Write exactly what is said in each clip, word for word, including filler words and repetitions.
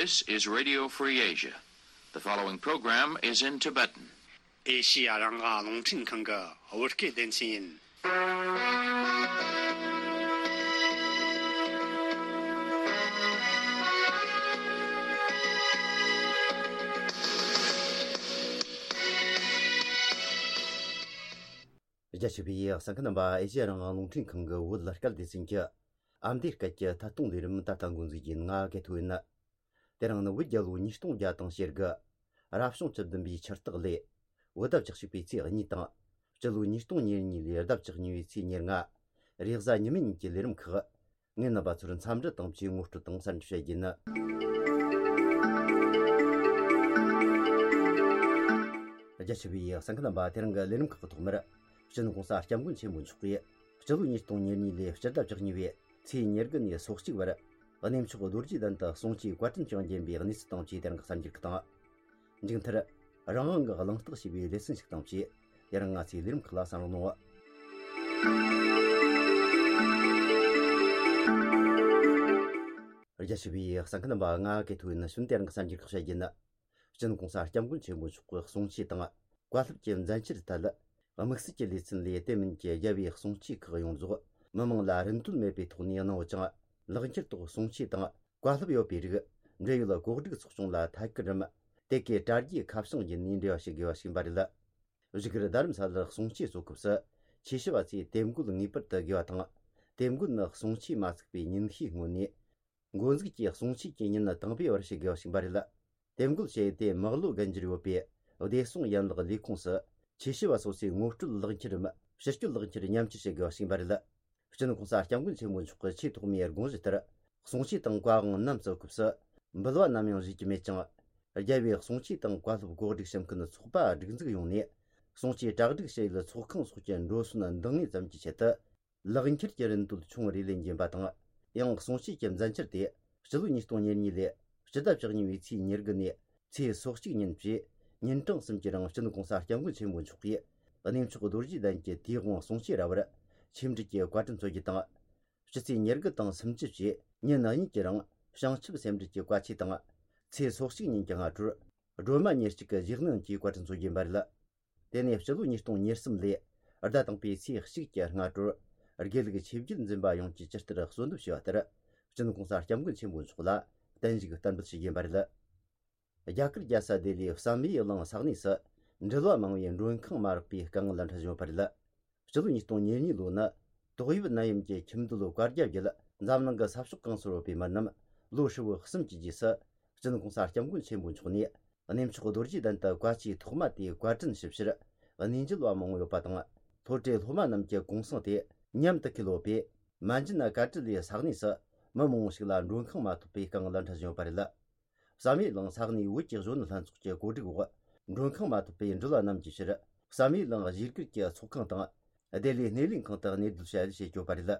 This is Radio Free Asia. The following program is in Tibetan. ཨེ་ཤི་ཡ་རང་དབང་རླུང་འཕྲིན་ཁང་གི་བོད་སྐད་སྡེ་ཚན་ཡིན། རྒྱ་ཆེ་བའི་གསན་མཁན་རྣམ་པ། ཨེ་ཤི་ཡ་རང་དབང་རླུང་འཕྲིན་ཁང་གི་བོད་སྐད་སྡེ་ཚན་གྱི་ཨ་མདོའི་སྐད་ཀྱི་ཐད་གཏོང་ལས་རིམ་ད་ལྟ་འགོ་འཛུགས་ཡིན། ང་གི་ཐུགས་ཡིན། དེ་རིང་ནི་བོད་རྒྱལ་ལོ་ཉིས་སྟོང་བརྒྱ་དང་ཞེ་དགུ། རབ་བྱུང་བཅུ་བདུན་པའི་ཆུ་སྟག་ལོའི་ཟླ་བཅུ་གཅིག་པའི་ཚེས་གཉིས་དང་། སྤྱི་ལོ་ཉིས་སྟོང་ཉེར་གཉིས་ལོའི་ཟླ་བཅུ་གཉིས་པའི་ཚེས་ཉེར་ལྔ། རེས་གཟའ་ཉི་མའི་ཉིན་གྱི་ལས་རིམ་ཁག་ངས་རྣམ་པ་ཚོར་འཚམས་འདྲི་དང་བཅས་ངོ་སྤྲོད་དང་གསར་འགྱུར་བཤད་རྒྱུ་ཡིན། རྒྱ་ཆེ་བའི་གསན་མཁན་རྣམ་པ། དེ་རིང་གི་ལས་རིམ་ཁག་གི་ཐོག་མར། སྤྱི་ནོར་༸གོང་ས་༸སྐྱབས་མགོན་ཆེན་པོ་མཆོག་གིས་སྤྱི་ལོ་ཉིས་སྟོང་ཉེར་གཉིས་ལོའི་སྤྱི་ཟླ་བཅུ་གཉིས་པའི་ཚེས་ཉེར་དགུ་ནས་སོ་གཅིག་བར་གནས་མཆོག་རྡོ་རྗེ་གདན་དུ་གསུང་ཆོས་བཀའ་དྲིན་བསྐྱངས་བརྒྱུད་པའི་གནས་ཚུལ་དང་བཅས་དེ་རིང་གི་གསར་འགྱུར་ཁག་དང་། མཇུག་མཐར། རང་དབང་གི་གླེང་སྟེགས་ཞེས་པའི་ལེ་ཚན་ཞིག་དང་བཅས། དེ་རིང་ང་ཚོའི་ལས་རིམ་ཁག་ལ་གསན་རོགས་གནང་། རྒྱ་ཆེ་བའི་གསན་མཁན་རྣམ་པ། ང་གི་ཐུགས་ཡིན། ནི་གཞོན་དེ་རིང་གི་གསར་འགྱུར་ཁག་བཤད་རྒྱུ་ཡིན། སྤྱི་ནོར་༸གོང་ས་༸སྐྱབས་མགོན་ཆེན་པོ་མཆོག་གི་གསུང་ཆོས་དང་བཀའ་སློབ་ཀྱི་མཛད་འཆར་ཐད། དམིགས་བསལ་གྱི་ལེ་ཚན་ལས་དེ་མིན་གྱི་རྒྱལ་བའི་གསུང་ཆོས་ཁག་ཡོངས་རྫོགས་མི་མང་ལ་རིན་དོད་མེད་པའི་ཐོག་ནས་གནང་ཡོད་ཅིང་། ལག་འཁྱེར་ཐོག་གསུང་ཆོས་དང་བཀའ་སློབ་ཡོད་པའི་རིགས། འབྲེལ་ཡོད་གོ་སྒྲིག་ཚོགས་ཆུང་ལ་ཐད་ཀར་རམ། དེ་གའི་དྲ་རྒྱའི་ཁ་བྱང་བརྒྱུད་ནས་འབྲེལ་བ་བྱེད་དགོས་པ་ཞིག་ཡིན་པ་རེད། བཞུགས་སྒར་རྡ་རམ་ས་ལར་གསུང་ཆོས་གཙོ་སྐབས་སུ། ཆོས་ཞུ་བ་ཚོས་དེབ་འགོད་ངེས་པར་དུ་དགོས་པ་དང་། དེབ་འགོད་ནི་གསུང་ཆོས་མ་ཚུགས་པའི་ཉིན་ཤས་སྔོན་ནས། འགོ་འཛུགས་ཀྱིས་གསུང་ཆོས་ཀྱི་ཉིན་དང་པོའི་བར་ཞུ་དགོས་པ་ཞིག་ཡིན་པ་རེད། དེབ་འགོད་བྱས་ཏེ་མག་ལོ་རྒན་འགྱུར་ཡོད་པའི་བདེ་སྲུང་ཡན་ལག་ལས་ཁུངས་སུ། ཆོས་ཞུ་བ་སོ་སོའི་ངོ་སྤྲོད་ལག་འཁྱེར་རམ། ཕྱི་སྐྱོད་ལག་འཁྱེར་མཉམ་སྤྱོད་བྱེད་དགོས་པ་ཞིག་ཡིན་པ་རེད། སྤྱི་ནོར་༸གོང་ས་༸སྐྱབས་མགོན་ཆེན་པོ་མཆོག་གི་ཆེས་ཐོག་མའི་དགོངས་གཞི་ལྟར། གསུང་ཆོས་དང་བཀའ་དབང་རྣམས་བསྩལ་སྐབས་སུ། འབུལ་བ་ནམ་ཡང་བཞེས་ཀྱི་མེད་ཅིང་། རྒྱལ་བའི་གསུང་ཆོས་དང་བཀའ་སློབ་གོ་སྒྲིག་བྱེད་མཁན་ཚོགས་པ་སྒྲིག་འཛུགས་ཡོང་ནས། གསུང་ཆོས་གྲ་སྒྲིག་བྱེད་ཡུལ་ཚོགས་ཁང་སོགས་ཀྱི་འགྲོ་སོན་འདང་ངེས་ཙམ་གྱི་ཆེད་དུ། ལག་འཁྱེར་གྱི་རིན་དོད་ཆུང་རེ་ལེན་རྒྱུ་ཡིན་པ་དང་། ཡང་གསུང་ཆོས་ཀྱི་མཛད་འཆར་དེ། སྤྱི་ལོ་ཉིས་སྟོང་ཉེར་གཉིས་ལོའི་སྤྱི་ཟླ་བཅུ་གཉིས་པའི་ཚེས་ཉེར་དགུ་ནས་ཚེས་སོ་གཅིག་ཉིན་བཅས་ཉིན་གྲངས་གསུམ་གྱི་རིང་སྤྱི་ནོར་༸གོང་ས་༸སྐྱབས་མགོན་ཆེན་པོ་མཆོག་གིས་གནས་མཆོག་རྡོ་རྗེ་གདན་གྱི་དུས་དབང་གསུང་ཆོས་ར་བར་ཆེད་འབྲེལ་གྱི་བཀའ་དྲིན་སྩོལ་རྒྱུ་དང་། སྤྱི་ཚེས་ཉེར་དགུ་དང་སུམ་ཅུ་བཅས་ཉིན་གཉིས་ཀྱི་རིང་བྱང་ཆུབ་སེམས་འགྲེལ་གྱི་བཀའ་ཆོས་དང་། ཚེས་སོ་གཅིག་ཉིན་གྱི་སྔ་དྲོར་སྒྲོལ་མ་ཉེར་གཅིག་གི་ཞལ་གནོན་གྱི་བཀའ་དྲིན་སྩོལ་རྒྱུ་ཡིན་པ་རེད། དེ་ནས་སྤྱི་ལོ་ཉིས་སྟོང་ཉེར་གསུམ་ལོའི་ཟླ་དང་པོའི་ཚེས་གཅིག་གི་སྔ་དྲོར་དགེ་ལུགས་ཆོས་བརྒྱུད་འཛིན་པ་ཡོངས་ཀྱིས་ཇི་ལྟར་གསོལ་འདེབས་ཞུས་པ་ལྟར། སྤྱི་ནོར་༸གོང་ས་༸སྐྱབས་མགོན་ཆེན་པོ་མཆོག་ལ་བརྟན་བཞུགས་བསྟར་འབུལ་ཞུ་རྒྱུ་ཡིན་པ་རེད། རྒྱ་གར་རྒྱལ་ས་ལྡི་ལིའི་བསམ་ཡས་གླིང་ས་གནས་སུ་འགྲུལ་བ་མང་བོས་མགྲོན་ཁང་མ་རག་པའི་དཀའ་ངལ་འཕྲད་བཞིན་ཡོད་པ་རེད། སྤྱི་ལོ་ཉིས་སྟོང་ཉེར་གཉིས་ལོ་ནི་ཏོག་དབྱིབས་ནད་ཡམས་ཀྱི་ཁྱིམ་སྡོད་བཀའ་རྒྱ་བརྒྱུད་འཛམ་གླིང་གི་ས་ཕྱོགས་གང་སར་ཡོད་པའི་མི་རྣམས་ལོ་ཧྲིལ་བོ་གསུམ་གྱི་རྗེས་སུ། སྤྱི་ནོར་༸གོང་ས་༸སྐྱབས་མགོན་ཆེན་པོ་མཆོག་ནས་གནས་མཆོག་རྡོ་རྗེ་གདན་དུ་བཀའ་ཆོས་ཐོག་མ་དེའི་བཀའ་དྲིན་ཞུ་ཕྱིར་གནས་མཇལ་བ་མང་བོ་ཡོད་པ་དང་། སློབ་གྲྭའི་སློབ་མ་རྣམས་ཀྱི་གུང་སེང་དེ་མཉམ་དུ་འཁེལ་ཡོད་པས། མན་ཇུ་ན་ཀ་ཏྲི་ལའི་ས་གནས་སུ་མི་མང་བོ་ཞིག་ལ་མགྲོན་ཁང་མ་ཐོབ་པའི་དཀའ་ངལ་འཕྲད་བཞིན་ཡོད་པ་རེད། བསམ་ཡས་གླིང་ས་གནས་བོད་ཀྱི་གཞོན་ནུ་ལྷན་ཚོགས་ཀྱི་གོ་སྒྲིག་འོག་མགྲོན་ཁང་མ་ཐོབ་པའི་འགྲུལ་བ་རྣམས་ཀྱི་ཕྱིར་བསམ་ཡས་གླིང་གཞིས་སྒར་གྱི་ཚོགས་ཁང་དང་། སྡེ་ལའི་སྣེ་ལེན་ཁང་དུ་གནས་སྡོད་བྱ་ཡུལ་བྱེད་ཆོག་པ་རེད།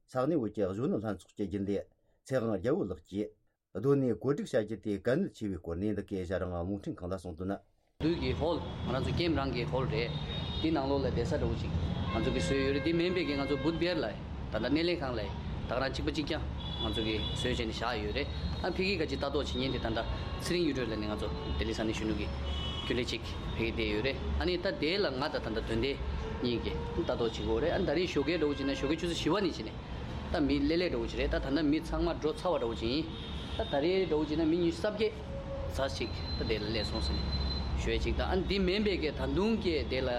ས་གནས་བོད་ཀྱི་གཞོན་ནུ་ལྷན་ཚོགས་ཀྱི་རྒྱུན་ལས་ཚེ་དབང་རྒྱལ་པོ་ལགས་ཀྱིས། སྡོད་གནས་བཀོད་སྒྲིག་བྱ་རྒྱུ་དེ་གལ་གནད་ཆེ་བའི་སྐོར་ནས་འདི་གའི་ཞལ་རང་རླུང་འཕྲིན་ཁང་ལ་གསུངས་དོན། བདུད་ཀྱི་ཧོལ། ང་རང་ཚོ་ཀེམ་རང་གི་ཧོལ་རེད། དེ་ནང་ལོགས་ལ་བསྡད་ས་འདྲ་བོ་ཅིག་ང་ཚོ་གིས་བཟོས་ཡོད་རེད། དེ་མིན་པའི་གི་ང་ཚོ་བུད་བེར་ལ་ད་ལྟ་སྣེ་ལེན་ཁང་ལ་ད་ག་རང་གཅིག་པ་གཅིག་རྐྱང་ང་ཚོ་གིས་བཟོས་བྱས་ནས་བཞག་ཡོད་རེད། ཨ་ཕ་གི་ག་ཅིག་ལྟ་རྟོག་བྱེད་མཁན་དེ་ད་ལྟ་ཚེ་རིང་གཡུ་སྒྲོན་ལ་ནི་ང་ཚོ་ལྡི་ལི་ས་གནས་གཞོན་ནུ་གི་རྒྱུན་ལས་གཅིག་ཕ་གི་བསྡད་ཡོད་རེད། ཨ་ནི་ད་དེ་ལ་ང་ད་ད་ལྟ་དོན་ལྡན་གཉིས་ཀྱིས་ལྟ་རྟོག་བྱེད་དགོས་རེད། ཨ་ནི་ད་རེས་ཞོགས་ཀའི་འདྲ་བོ་བྱས་ན་ཞོགས་ཀའི་ཆུ་ཚོད་བཞི་པ་ནས་བྱས་ནས། ད་མི་ལེ་ལེ་འདྲ་བོ་ཅིག་རེད། ད་ད་ལྟ་མི་ཚང་མ་འགྲོ་ཚར་བ་འདྲ་བོ་ཅིག་ཡིན། ད་ད་རེས་འདྲ་བོ་ཅིག་ན་མི་ཉི་ཤུ་རྩ་བརྒྱད་ཙམ་ཞིག་ད་དེ་ལ་སླེབས་སོང་ཟེར་ནས་ཞུ་ཡས་ཅིག་དང་། ཨ་འདི་མིན་པའི་གི་ད་དུང་གི་དེ་ལ་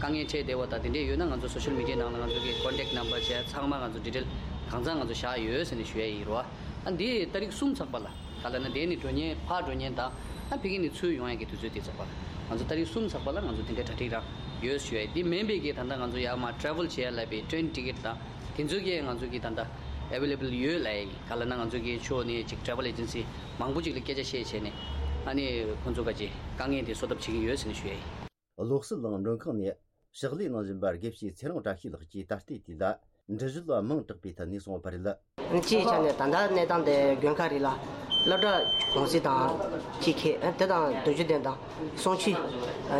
དཀའ་ངལ་འཕྲད་བསྡད་པ་དང་དེ་འདྲས་ཡོད་ན་ང་ཚོ་སོ་ཤལ་མི་ཌི་ཡའི་ནང་ལ་ང་ཚོ་གི་ཀོན་ཊེག་ནམ་བར་བྱས་ཚང་མ་ང་ཚོ་ཌི་ཊེལ་གང་ཚང་ང་ཚོ་བཞག་ཡོད་ཟེར་ནས་ཞུ་ཡས་ཡིན་རོ། ཨ་འདི་ཏ་རིག་གསུམ་ཚགས་པ་ལ་ག་ལ་ན་དེ་ནི་འགྲོ་མཁན་ཕར་འགྲོ་མཁན་དང་ཨ་ཕ་གི་ནས་ཚུར་ཡོང་ཡས་ཀྱི་དུས་ཚོད་དེ་ཚགས་པ་ལ་ང་ཚོ་ཏ་རིག་གསུམ་ཚགས་པ་ལ་ང་ཚོ་དེ་འདྲས་གྲ་སྒྲིག་རང་ཡོད་ཞུ་ཡས། འདི་མིན་པའི་གི་ད་ལྟ་ང་ཚོ་ཡར་མར་ཊེ་རེ་ཝལ་བྱེད་ཡས་ལབ་པའི་ཊེ་རེན་ཊི་ཀེ་ཊི་དང་། དེ་ཚོ་གིས་ང་ཚོ་གི་ད་ལྟ་ཨེ་ཝེ་ལེ་བལ་ཡོད་ལབ་ཡ་ཡིན། ག་ལ་ན་ང་ཚོ་གི་ཕྱོགས་ནས་ཅིག་ཊེ་རེ་ཝལ་ཨེ་ཇེན་སི་མང་པོ་ཅིག་ལ་སྐད་ཆ་བཤད་བྱས་ནས་ཨ་ནི་ཁོང་ཚོ་ག་ཅིག་དཀའ་ངལ་དེ་བཟོད་ཐབས་བྱེད་ཀྱི་ཡོད་ཟེར་ནས་ཞུ་ཡ་ཡིན། བློ་གསལ་གླིང་མགྲོན་ཁང་ནས་ཕྱག་ལས་གནང་བཞིན་པ་དགེ་བཤེས་ཚེ་རིང་བཀྲ་ཤིས་ལགས་ཀྱིས་ད་ལྟའི་དུས་ལ་འབྲི་གཞུང་ལ་མིང་གྲགས་པའི་ཐད་ནས་གསུངས་པ་རེད། སྤྱིའི་ཆ་ནས་ད་ལྟ་གནས་སྟངས་དེ་དགོན་ཁག་རེ་ལ་སློབ་གྲྭ་གུང་སེང་དང་གཅིག་ཁེལ་དེ་དང་རྡོ་རྗེ་གདན་དང་། གསུང་ཆོས་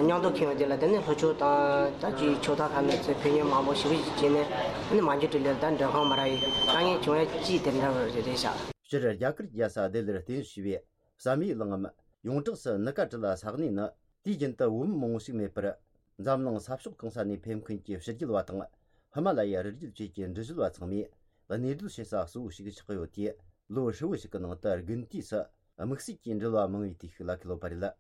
མཉམ་དུ་འཁེལ་བ་དེ་ལ་དེ་ནི་ལྷོ་ཕྱོགས་དང་ད་ཅིག་ཕྱོགས་མཐའ་ཁག་ནས་ཚུར་ཕེབས་མཁན་མང་པོ་ཞེ་པོ་ཅིག་བྱས་ནས་ཨ་ནི་མ་འཇུ་ཏྲི་ལེར་ད་མགྲོན་ཁང་མ་རག་ཡས་དཀའ་ངལ་བྱུང་ཡ་ཅིག་དེ་འདྲ་བ་རེད་ཤག་སྤྱིར་རྒྱ་གར་རྒྱལ་ས་ལྡི་ལིར་རྟེན་གཞི་བྱས་པའི་ བསམ་ཡས་གླིང་ངམ་ཡོངས་གྲགས་སུ་ནི་ཀ་ཏྲི་ལ་ས་གནས་ནི། དུས་རྒྱུན་དུ་བོད་མི་མང་བོ་ཞིག་མེད་པར། འཛམ་གླིང་ས་ཕྱོགས་གང་ས་ནས་ཕེབས་མཁན་གྱི་ཕྱི་རྒྱལ་བ་དང་། ཧི་མ་ལ་ཡའི་རི་རྒྱུད་བཅས་ཀྱི་འབྲི་གཞུང་བ་ཚང་མས་གནས་སྡོད་བྱེད་ས་གཙོ་བོ་ཞིག་ཆགས་ཡོད་དེ། ལོ་ཧྲིལ་བོ་ཞིག་གི་ནང་དུ་དགུན་དུས་སུ་དམིགས་བསལ་གྱི་འགྲུལ་བ་མང་བའི་དུས་ཤིག་ལ་གོ་ལོ་བ་རེད།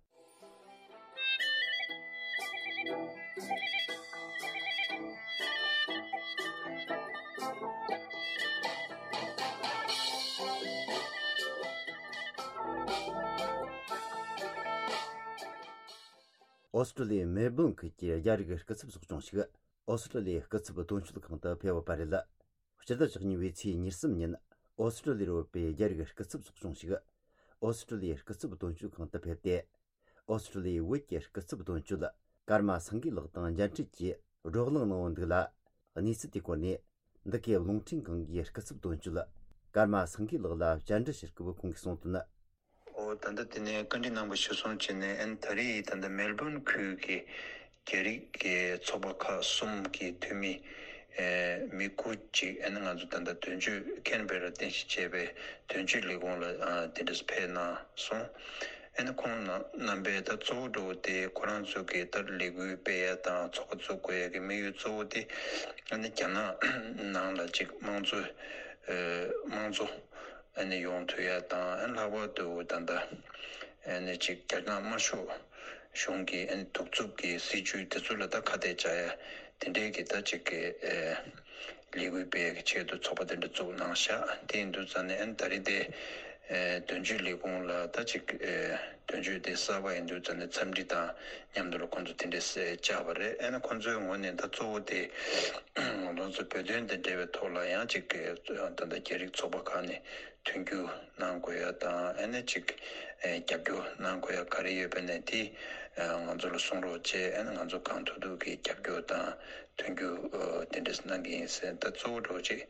ཨོ་སི་ཀྲུ་ལི་ཡའི་མེལ་སྦོན་ཁུལ་གྱི་རྒྱ་རིགས་སྐུ་ཚབ་ཚོགས་ཆུང་ཞིག་ཨོ་སི་ཀྲུ་ལི་ཡའི་སྐུ་ཚབ་དོན་གཅོད་ཁང་དུ་ཕེབས་ཡོད་པ་རེད། སྤྱི་ཟླ་བཅུ་གཉིས་པའི་ཚེས་ཉེར་གསུམ་ཉིན་ཨོ་སི་ཀྲུ་ལི་ཡར་ཡོད་པའི་རྒྱ་རིགས་སྐུ་ཚབ་ཚོགས་ཆུང་ཞིག་ཨོ་སི་ཀྲུ་ལི་ཡའི་སྐུ་ཚབ་དོན་གཅོད་ཁང་དུ་ཕེབས་ཏེ། ཨོ་སི་ཀྲུ་ལི་ཡའི་བོད་ཀྱི་སྐུ་ཚབ་དོན་གཅོད་ཀརྨ་སེང་གེ་ལགས་དང་མཇལ་འཕྲད་ཀྱིས་བགྲོ་གླེང་གནང་བ་འདུག་ལ། གནས་ཚུལ་དེའི་སྐོར་ནས་འདི་གའི་རླུང་འཕྲིན་ཁང་གི་སྐུ་ཚབ་དོན་གཅོད་ཀརྨ་སེང་གེ་ལགས་ལ་བཅར་འདྲི་ཞུ་སྐབས་ཁོང་གིས་གསུངས་དོན། ཨོ་ད་ལྟ་དེ་ནས་བཀའ་འདྲི་གནང་བ་གཞིར་བཟུང་བྱས་ནས་ཨན་ད་རེས་ད་ལྟ་མེལ་སྦོན་ཁུལ་གྱི་རྒྱ་རིགས་ཀྱི་ཚོགས་པ་ཁག་གསུམ་གྱི་འཐུས་མི་ཨེ་མི་དགུ་ཅིག་ཨན་ང་ཚོ་ད་ལྟ་དོན་གཅོད་ཁེན་བེ་ར་རྟེན་གཞི་བྱས་པའི་དོན་གཅོད་ལས་ཁུངས་ལ་ཨ་དེ་འདྲས་ཕེབས་གནང་སོང་། ཨན་ཁོང་རྣམ་པས་ད་གཙོ་བོ་འགྲོ་བ་དེ་ཁོ་རང་ཚོ་གི་ད་ལས་འགུལ་སྤེལ་ཡ་དང་ཚོགས་པ་བཙུགས་དགོས་ཡ་གི་དམིགས་ཡུལ་གཙོ་བོ་དེ་ཨན་རྒྱ་ནག་ནང་ལ་ཅིག་དམངས་གཙོ་ཨེ་དམངས་གཙོ། ཨ་ནི་ཡོང་ཐུབ་ཡ་དང་། ཨ་ནི་ལྷག་པར་དུ་ད་ལྟ་ཨ་ནི་ཅིག་རྒྱ་ནག་དམར་ཤོག་གཞུང་གི་ཨ་ནི་གདུག་རྩུབ་ཀྱི་སྲིད་བྱུས་དེ་ཚོ་ལ་ད་ཁ་གཏད་བཅག་ཡ་དེ་འདྲའི་གི་ད་ཅིག་གི་ཨེ་ལས་འགུལ་སྤེལ་ཡ་གི་ཆེད་དུ་ཚོགས་པ་དེ་འདྲ་བཙུགས་གནང་ཤག་དེ་ཡིན་དུས་ཙང་ནས་ཨ་ནི་ད་རེས་དེ་ཨེ་དོན་གཅོད་ལས་ཁུངས་ལ་ད་ཅིག་ཨེ་དོན་གཅོད་དེ་གསར་པ་ཡིན་དུས་ཙང་ནས་འཚམས་འདྲི་དང་མཉམ་དུ་ལ་ཁོང་ཚོ་དེ་འདྲས་བཅར་བ་རེད། ཨ་ནི་ཁོང་ཚོའི་ངོས་ནས་ད་གཙོ་བོ་དེ་ང་ཚོ་བོད་དོན་དང་འབྲེལ་བའི་ཐོག་ལ་ཡང་ཅིག་གི་ད་ལྟ་རྒྱ་རིགས་ཚོགས་པ་ཁག་ནས་མཐུན་འགྱུར་གནང་དགོས་ཡ་དང་། ཨ་ནི་ཅིག་ཨེ་རྒྱབ་སྐྱོར་གནང་དགོས་ཡ་ག་རེ་ཡོད་པ་ནས་དེ་ཨེ་ང་ཚོ་ལ་གསུང་རོགས་བྱས། ཨ་ནི་ང་ཚོ་གང་ཐུབ་ཐུབ་ཀྱིས་རྒྱབ་སྐྱོར་དང་མཐུན་འགྱུར་ཨེ་དེ་འདྲས་གནང་གི་ཡིན་ཟེར། ད་གཙོ་བོ་འགྲོ་ཅིག་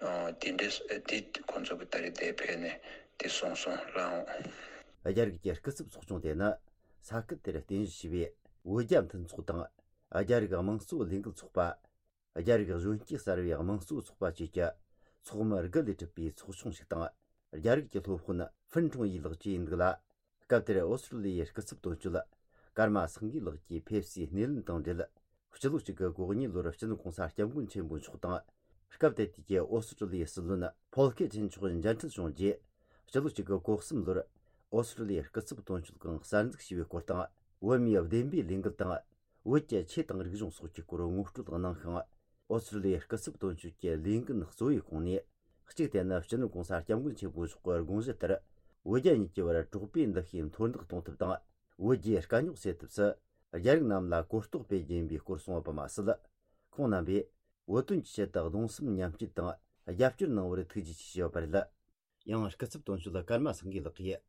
ཨེ་དེ་འདྲས་ཨེ་དེ་ཁོང་ཚོ་གི་ད་རེས་དེ་ཕེབས་ནས་དེ་གསུངས་སོང་ལགས། རྒྱ་རིགས་ཀྱི་སྐུ་ཚབ་ཚོགས་ཆུང་དེ་ནི་ས་ཁུལ་དེར་རྟེན་གཞི་བྱས་པའི་བོད་རྒྱ་མཐུན་ཚོགས་དང་། རྒྱ་རིགས་དམངས་གཙོ་ལས་འགུལ་ཚོགས་པ། རྒྱ་རིགས་གཞོན་སྐྱེས་གསར་བའི་དམངས་གཙོ་ཚོགས་པ་བཅས་ཀྱི་ཚོགས་མི་དགུ་ལས་གྲུབ་པའི་ཚོགས་ཆུང་ཞིག་དང་། རྒྱ་རིགས་ཀྱི་སློབ་དཔོན་ཧྥུན་ཁྲུང་ཡི་ལགས་བཅས་ཡིན་འདུག་ལ། སྐབས་དེར་ཨོ་སི་ཀྲུ་ལི་ཡའི་སྐུ་ཚབ་དོན་གཅོད་ཀརྨ་སེང་གེ་ལགས་ཀྱིས་ཕེབས་བསུའི་སྣེ་ལེན་དང་འབྲེལ། སྤྱི་ལོ་གཅིག་དགུ་གོ་གཉིས་ལོར་སྤྱི་ནོར་གོང་ས་སྐྱབས་མགོན་ཆེན་པོ་མཆོག་དང་། སྐབས་དེ་དུས་ཀྱི་ཨོ་སི་ཀྲུ་ལི་ཡའི་སྲིད་བློན་ཕོལ་ཁེ་ཆེན་མཆོག་མཇལ་འཕྲད་བྱུང་རྗེས། སྤྱི་ལོ་གཅིག་དགུ་གོ་གསུམ་ལོར་ཨོ་སི་ཀྲུ་ལི་ཡའི་སྐུ་ཚབ་དོན་གཅོད་ཁང་གསར་འཛུགས་བྱས་པའི་སྐོར་དང་། བོད་མིའི་བདེན་པའི་ལས་འགུལ་དང་། བོད་ཀྱི་ཆོས་དང་རིག་གཞུང་སོགས་ཀྱི་སྐོར་ངོ་སྤྲོད་གནང་ཞིང་། ཨོ་སི་ཀྲུ་ལི་ཡའི་སྐུ་ཚབ་དོན་གཅོད་ཀྱི་ལས་འགན་གཙོ་བོའི་ཁོངས་ནས། གཅིག་དེ་ནི་སྤྱི་ནོར་གོང་ས་སྐྱབས་མགོན་ཆེན་པོ་མཆོག་གི་དགོངས་གཞི་ལྟར། བོད་རྒྱ་གཉིས་ཀྱི་བར་གྲོགས་པོའི་འདུ་ཤེས་མཐོར་འདེགས་གཏོང་ཐབས་དང་། བོད་རྒྱའི་དཀའ་རྙོག་སེལ་ཐབས་སུ། རྒྱ་རིགས་རྣམས་ལ་གོ་རྟོགས་སྤེལ་རྒྱུ་ཡིན་པའི་སྐོར་གསུངས་པ་མ་ཟད། ཁོང་རྣམ་པས་བོད་དོན་གྱི་ཆེད་དུ་གདུང་སེམས་མཉམ་སྐྱེད་དང་རྒྱབ་སྐྱོར་གནང་བར་ཐུགས་རྗེ་ཆེ་ཞུས་ཡོད་པ་རེད། ཡང་སྐུ་ཚབ་དོན་གཅོད་ཀརྨ་སེང་གེ་ལགས་ཀྱིས་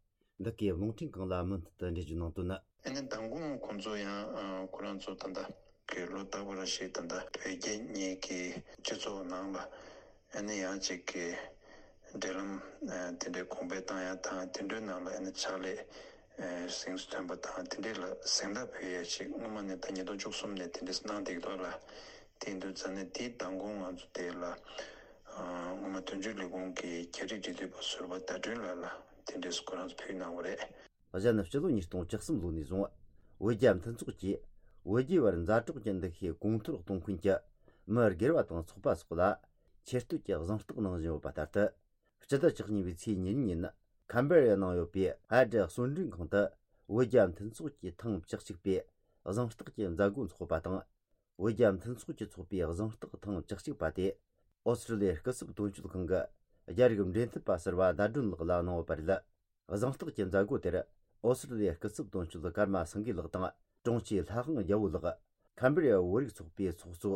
འདི་གའི་རླུང་འཕྲིན་ཁང་ལ་མུ་མཐུད་དུ་འགྲེལ་བརྗོད་གནང་དོན་ནི། ཨ་ནི་མདང་དགོང་ཁོང་ཚོ་ཡང་ཨ་ཁོ་རང་ཚོ་ད་ལྟ་གི་ལོ་རྟག་པ་རེ་བཞིན་ད་ལྟ་བོད་རྒྱ་གཉིས་ཀྱི་སྤྱི་ཚོགས་ནང་ལ་ཨ་ནི་ཡང་གཅིག་གི་འབྲེལ་ལམ་ཨ་དེ་འདྲའི་གོང་འཕེལ་བཏང་ཡ་དང་། དེ་འདྲའི་ནང་ལ་ཨ་ནི་ཕྱག་ལས་ཨ་གཟེངས་སུ་ཐོན་པ་དང་། དེ་འདྲའི་ལ་གཟེངས་རྟགས་ཕུལ་ཡ་ཞིག་སྔོན་མ་ནས་ད་ཉིས་སྟོང་བཅུ་གསུམ་ནས་དེ་འདྲས་གནང་བསྡད་ཀྱི་འདུག་ལ། དེ་ཡིན་དུས་ཙང་ནས་དེའི་མདང་དགོང་ང་ཚོ་དེ་ལ་ཨ་སྔོན་མ་དོན་གཅོད་ལས་ཁུངས་ཀྱི་རྒྱ་རིགས་འབྲེལ་མཐུད་པ་ཟུར་པ་ཟླ་སྒྲོན་ལགས་ལ་དེ་འདྲས་སུ་ཁོ་རང་ཚོ་ཕུལ་གནང་བ་རེད། གཞན་སྤྱི་ལོ་ཉིས་སྟོང་བཅུ་གསུམ་ལོ་ནས་བཟུང་བོད་རྒྱ་མཐུན་ཚོགས་ཀྱིས་བོད་རྒྱའི་བར་མཛའ་གྲོགས་ཀྱི་འདུ་ཤེས་གོང་མཐོར་གཏོང་མཁན་གྱི་མི་སྒེར་བ་དང་ཚོགས་པ་སོགས་ལ་ཆེ་བསྟོད་ཀྱི་གཟེངས་རྟགས་གནང་བཞིན་ཡོད་པ་ལྟར་དུ། སྤྱི་ཟླ་བཅུ་གཉིས་པའི་ཚེས་ཉེར་གཉིས་ཉིན་ཁམ་བེ་ར་ཡའི་ནང་ཡོད་པའི་ཧ་ཏྲི་གསོལ་མགྲོན་ཁང་དུ་བོད་རྒྱ་མཐུན་ཚོགས་ཀྱི་ཐེངས་བཅུ་གཅིག་པའི་གཟེངས་རྟགས་ཀྱི་མཛད་སྒོ་འཚོགས་པ་དང་། བོད་རྒྱ་མཐུན་ཚོགས་ཀྱི་ཚོགས་པའི་གཟེངས་རྟགས་ཐེངས་བཅུ་གཅིག་པ་དེ་ཨོ་སི་ཀྲི་ལི་ཡའི་སྐུ་ཚབ་དོན་གཅོད་ཁང་གི་རྒྱ་རིགས་འབྲེལ་མཐུད་པ་ཟུར་པ་ཟླ་སྒྲོན་ལགས་ལ་གནང་ཡོད་པ་རེད། གཟེངས་རྟགས་ཀྱི་མཛད་སྒོ་དེར་ཨོ་སི་ཀྲི་ལི་ཡའི་སྐུ་ཚབ་དོན་གཅོད་ཀརྨ་སེང་གེ་ལགས་དང་དྲུང་ཆེ་ལྷ་དབང་རྒྱལ་པོ་ལགས། ཁམ་བེ་ར་ཡ་བོད་རིགས་ཚོགས་པའི་ཚོགས་གཙོ་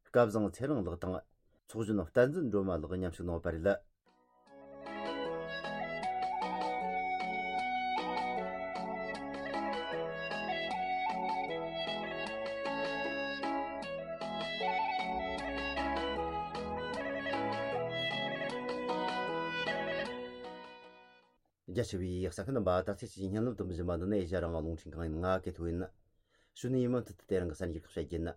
སྐལ་བཟང་ཚེ་རིང་ལགས་དང་། ཚོགས་གཞོན་བསྟན་འཛིན་སྒྲོལ་མ་ལགས་མཉམ་ཞུགས་གནང་བ་རེད། རྒྱ་ཆེ་བའི་གསན་མཁན་རྣམ་པ། ད་ཚེས་ཀྱི་བརྙན་ལམ་དུ་འབུལ་བཞིན་པ་འདི་ནི་ཨེ་ཤ་ཡ་རང་དབང་རླུང་འཕྲིན་ཁང་ཡིན། ང་གི་ཐུག་ཡིན། ཞུ་ནི་ཡིན་མུ་མཐུད་དུ་དེ་རིང་གི་གསར་འགྱུར་ཁག་བཤད་རྒྱུ་ཡིན།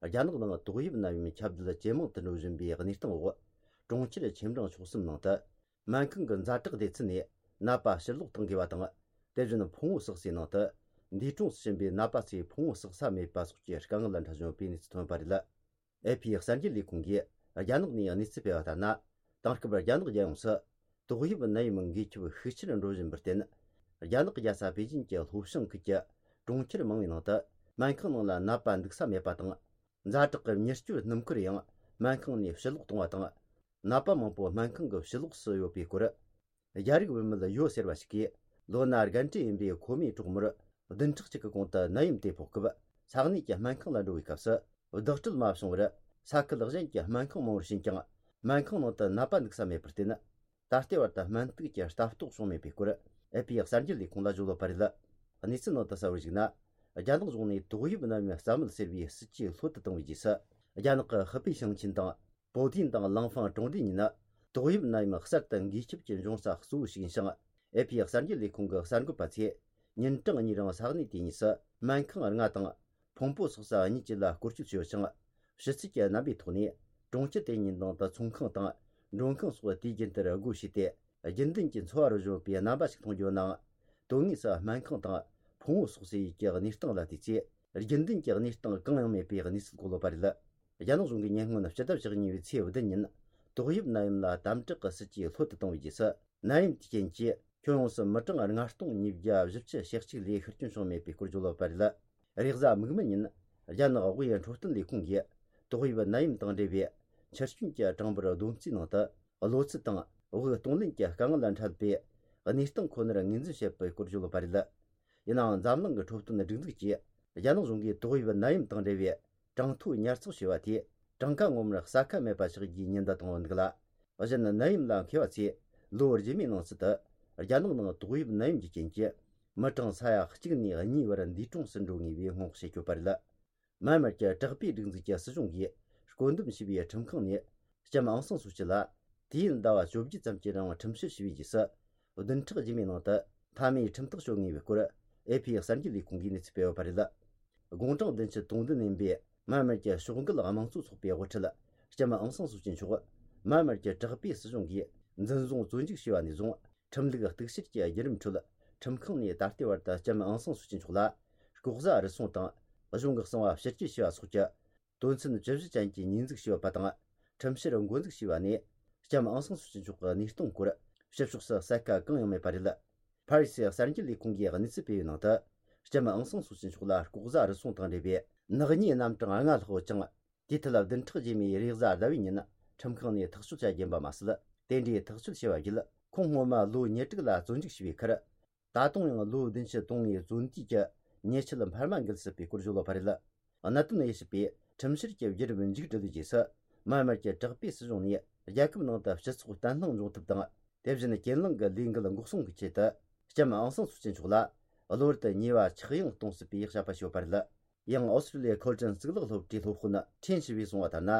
རྒྱ་ནག་ནང་ཏོག་དབྱིབས་ནད་ཡམས་ཁྱབ་གདལ་ཇེ་མང་དུ་འགྲོ་བཞིན་པའི་གནས་སྟངས་འོག་གྲོང་ཁྱེར་ཆེ་འབྲིང་ཆུང་གསུམ་ནང་དུ་སྨན་ཁང་གི་ཛ་དྲག་སྡེ་ཚན་ནས་ནད་པ་ཕྱིར་ལོག་གཏང་དགོས་པ་དང་ དེ་བཞིན་ཕུང་བོ་བསགས་སའི་ནང་དུ་འདས་གྲོངས་སུ་ཕྱིན་པའི་ནད་པ་ཚོས་ཕུང་བོ་བསགས་ས་མེད་པ་སོགས་ཀྱི་དཀའ་ངལ་འཕྲད་བཞིན་ཡོད་པའི་གནས་ཚུལ་ཐོན་པ་རེད། ཨེ་ཕི་གསར་འགྱུར་ལས་ཁུངས་ཀྱིས་རྒྱ་ནག་ནས་གནས་ཚུལ་སྤེལ་བ་ལྟར་ན། དེང་སྐབས་རྒྱ་ནག་རྒྱལ་ཡོངས་སུ་ཏོག་དབྱིབས་ནད་ཡམས་འགོས་ཁྱབ་ཤུགས་ཆེར་འགྲོ་བཞིན་པར་བརྟེན། རྒྱ་ནག་རྒྱལ་ས་པེ་ཅིན་གྱི་ལྷོ་བྱང་ཁུལ་གྱི་གྲོང་ཁྱེར་མང་བའི་ནང་དུ་སྨན་ཁང་ནང་ལ་ནད་པ་འདུག་ས་མེད་པ་དང་། ཛ་དྲག་གི་མྱུར་སྐྱོབ་སྣུམ་འཁོར་ཡང་སྨན་ཁང་ནས་ཕྱིར་ལོག་གཏོང་བ་དང་། ནད་པ་མང་པོ་སྨན་ཁང་གི་ཕྱི་ལོགས་སུ་ཡོད་པའི་སྐོར། རྒྱ་རིགས་བུད་མེད་ཡོ་ཟེར་བ་ཞིག་གིས་ལོ་ན་རྒན་གྲས་ཡིན་པའི་ཁོ་མོའི་གྲོགས་མོར་བདུན་ཕྲག་གཅིག་གི་གོང་དུ་ནད་ཡམས་དེ་ཕོག་སྐབས་ས་གནས་ཀྱི་སྨན་ཁང་ལ་འགྲོ་བའི་སྐབས་སུ་བདག་སྤྲོད་མ་བྱུང་བར། ས་ཁུལ་གཞན་གྱི་སྨན་ཁང་མང་བོར་ཕྱིན་ཀྱང་སྨན་ཁང་ནང་དུ་ནད་པ་འདུག་ས་མེད་པར་བརྟེན། ད་ལྟའི་བར་དུ་སྨན་རྟགས་ཀྱི་ལྟ་རྟོག་བྱུང་མེད་པའི་སྐོར་ཨེ་ཕི་གསར་འགྱུར་ལས་ཁུངས་ལ་བརྗོད་ཡོད་པ་རེད། གནས་ཚུལ་ནང་དུ་གསལ་བོར་གཞིགས་ན། རྒྱ་ནག་གཞུང་ནས་ཏོག་དབྱིབས་ནད་ཡམས་རྩ་མེད་ཟེར་བའི་སྲིད་ཇུས་ལྷོད་དུ་བཏང་བའི་རྗེས་སུ། རྒྱ་ནག་གི་ཧི་པེ་ཞིང་ཆེན་དང་། པོ་ཏིན་དང་ལང་ཧྥང་གྲོང་སྡེ་གཉིས་ནི་ཏོག་དབྱིབས་ནད་ཡམས་གསར་དུ་འགོས་ཁྱབ་ཀྱི་འབྱུང་ས་གཙོ་བོ་ཞིག་ཡིན་ཞིང་། ཨེ་ཕི་གསར་འགྱུར་ལས་ཁུངས་ཀྱི་གསར་འགོད་པ་ཚོས་ཉིན་གྲངས་གཉིས་རིང་ས་གནས་དེ་གཉིས་སུ་སྨན་ཁང་ལྔ་དང་། ཕུང་པོ་བསགས་ས་གཉིས་བཅས་ལ་སྐོར་སྐྱོད་བྱས་ཡོད་ཅིང་། ཕྱི་ཚུལ་གྱི་རྣམ་པའི་ཐོག་ནས་གྲོང་ཁྱེར་དེ་གཉིས་ནང་དུ་ཚོང་ཁང་དང་མགྲོན་ཁང་སོགས་དུས་རྒྱུན་ལྟར་སྒོ་ཕྱེ་སྟེ། རྒྱུན་ལྡན་གྱི་འཚོ་བ་རོལ་བཞིན་པའི་རྣམ་པ་ཞིག་མཐོང་རྒྱུ་ནའང་། དོན་དངོས་སུ་སྨན་ཁང་དང་ཕུང་བོ་བསགས་སའི་ཡུལ་གྱི་གནས་སྟངས་ལ་བལྟས་ཚེ། རྒྱུན་ལྡན་གྱི་གནས་སྟངས་གང་ཡང་མེད་པའི་གནས་ཚུལ་གོ་ལོག་པ་རེད། རྒྱ་ནག་གཞུང་གིས་ཉེ་སྔོན་སྤྱི་ཟླ་བཅུ་གཉིས་པའི་ཚེས་བདུན་ཉིན་ཏོག་དབྱིབས་ནད་ཡམས་ལ་དམ་དྲག་གི་སྲིད་ཇུས་ལྷོད་དུ་བཏང་བའི་རྗེས་སུ། ནད་ཡམས་དེའི་རྐྱེན་གྱིས་ཁྱོན་ཡོངས་སུ་མི་གྲངས་ལྔ་སྟོང་ཉིས་བརྒྱ་བཞི་བཅུ་ཞེ་གཅིག་ལས་ཤི་སྐྱོན་བྱུང་མེད་པའི་སྐོར་བརྗོད་ཡོད་པ་རེད། རེས་གཟའ་མིག་དམར་ཉིན། རྒྱ་ནག་དབུས་འཕྲོད་བསྟེན་ལས་ཁུངས་ཀྱིས་ཏོག་དབྱིབས་ནད་ཡམས་དང་འབྲེལ་བའི་འཆི་སྐྱོན་གྱི་གྲངས་འབོར་བསྡོམས་རྩིས་ནང་དུ། གློ་ཚད་དང་དབུགས་གཏོང་ལེན་གྱི་དཀའ་ངལ་འཕྲད་པའི་གནས་སྟངས་ཁོ་ནར་ངོས་འཛིན་བྱེད་པའི་སྐོར་བརྗོད་ཡོད་པ་རེད། ཡིན་ནའང་འཛམ་གླིང་གི་འཕྲོད་བསྟེན་སྒྲིག་འཛུགས་ཀྱིས་རྒྱ་ནག་གཞུང་གིས་ཏོག་དབྱིབས་ནད་ཡམས་དང་འབྲེལ་བའི་གྲངས་ཐོ་ཉར་ཚགས་བྱས་པ་དེས་གྲངས་ཀ་ངོ་མར་གསལ་ཁ་མེད་པ་ཆགས་རྒྱུའི་ཉེན་བརྡ་བཏང་ཡོད་འདུག་ལ། གཞན་ནད་ཡམས་ལ་མཁས་པ་ཚོས་ལོ་རྗེས་མའི་ནང་ཚུད་དུ་རྒྱ་ནག་ནང་ཏོག་དབྱིབས་ནད་ཡམས་ཀྱི་རྐྱེན་གྱིས་མི་གྲངས་ས་ཡ་གཅིག་ནས་གཉིས་བར་འདས་གྲོངས་སུ་འགྲོ་ངེས་པའི་སྔོན་དཔག་བྱེད་ཀྱི་ཡོད་པ་རེད། མཱན་མར་གྱི་དྲག་པོའི་སྒྲིག་འཛུགས་ཀྱི་སྲིད་གཞུང་གིས་བསྐོ་འདོམས་བྱས་པའི་ཁྲིམས་ཁང་ནས་ལྕམ་ཨང་སང་སུའུ་ཅི་ལ། དུས་ཡུན་ཟླ་བ་བཅོ་བརྒྱད་ཙམ་གྱི་རིང་ཁྲིམས་བཤེར་བྱས་པའི་རྗེས་སུ། བདུན་ཕྲག་རྗེས་མའི་ནང་དུ་མཐའ་མའི་ཁྲིམས་ཐག་གཅོད་ངེས་པའི་སྐོར་ཨེ་ཕི་གསར་འགྱུར་ལས་ཁུངས་ཀྱིས་གནས་ཚུལ་སྤེལ་ཡོད་པ་རེད། དགུང་གྲངས་བདུན་ཅུ་དོན་བདུན་ཡིན་པའི་མཱན་མར་གྱི་ཕྱོགས་འགལ་དམངས་གཙོ་ཚོགས་པའི་དབུ་ཁྲིད་ལྕམ་ཨང་སང་སུའུ་ཅི་མཆོག་མཱན་མར་གྱི་དྲག་པོའི་སྲིད་གཞུང་གིས་འཛིན་བཟུང་བཙོན་འཇུག་བྱས་པ་ནས་བཟུང་། ཁྲིམས་ལུགས་གཏུག་བཤེར་གྱི་བརྒྱུད་རིམ་ཁྲོད་ཁྲིམས་ཁང་ནས་ད་ལྟའི་བར་དུ་ལྕམ་ཨང་སང་སུའུ་ཅི་མཆོག་ལ་ལྐོག་ཟ་རུལ་སུངས་དང་གཞུང་གི་གསང་བ་ཕྱིར་སྐྱེལ་བྱས་པ་སོགས་ཀྱི་དོན་ཚན་བཅུ་བཞི་ཅན་གྱི་ཉེས་འཛུགས་བྱས་ཡོད་པ་དང་། ཁྲིམས་བཤེར་འགོ་འཛུགས་བྱས་པ་ནས་ལྕམ་ཨང་སང་སུའུ་ཅི་མཆོག་གི་གནས་སྟངས་སྐོར་ཕྱི་ཕྱོགས་སུ་གསལ་ཁ་གང་ཡང་མེད་པ་རེད། ཕ་རི་སི་གསར་འགྱུར་ལས་ཁུངས་ཀྱིས་གནས་ཚུལ་སྤེལ་བའི་ནང་དུ། ལྕམ་ཨང་སང་སུའུ་ཅི་མཆོག་ལ་ལྐོག་ཟ་རུལ་སུངས་དང་འབྲེལ་བའི་ནག་ཉེས་རྣམ་གྲངས་ལྔ་ལྷག་ཡོད་ཅིང་། དེའི་ཐད་བདུན་ཕྲག་རྗེས་མའི་རེས་གཟའ་ཟླ་བའི་ཉིན་ཁྲིམས་ཁང་ནས་ཐག་གཅོད་བྱ་རྒྱུ་ཡིན་པ་མ་ཟད། དེ་འདྲའི་ཐག་གཅོད་བྱས་པ་བརྒྱུད་ཁོང་སྔོན་མ་ལོ་ཉེར་དྲུག་ལ་བཙོན་འཇུག་བྱས་པའི་ཁར། ད་དུང་ཡང་ལོ་བདུན་ཅུ་དོན་ལྔའི་བཙོན་དུས་ཀྱི་ཉེས་ཆད་འཕར་མ་འགུལ་སྲིད་པའི་སྐོར་བརྗོད་ཡོད་པ་རེད། གནད་དོན་དབྱེ་ཞིབ་པས་ཁྲིམས་བཤེར་གྱི་བརྒྱུད་རིམ་མཇུག་བསྒྲིལ་བའི་རྗེས་སུ། མཱན་མར་གྱི་དྲག་པོའི་སྲིད་གཞུང་ནས་རྒྱལ་ཁབ་ནང་དུ་སྤྱི་ཚོགས་བརྟན་ལྷིང་འབྱུང་ཐབས་དང་། དེ་བཞིན་གྱེན་ལངས་ཀྱི་ལས་འགུལ་འགོག་སྲུང་གི་ཆེད་དུ། ལྕམ་ཨང་སང་སུའུ་ཅི་མཆོག་ལ་གློ་བུར་དུ་ཉེས་པ་ཆག་ཡང་གཏོང་སྲིད་པའི་བྱ་བ་ཞིག་ཡོད་པ་རེད། ཡང་ཨོ་སི་ཀྲི་ལི་ཡའི་འཁོར་དྲུང་གཙུག་ལག་སློབ་གྲྭའི་སློབ་དཔོན་ཁྲེན་ཞི་བས་གསུངས་པ་ལྟར་ན།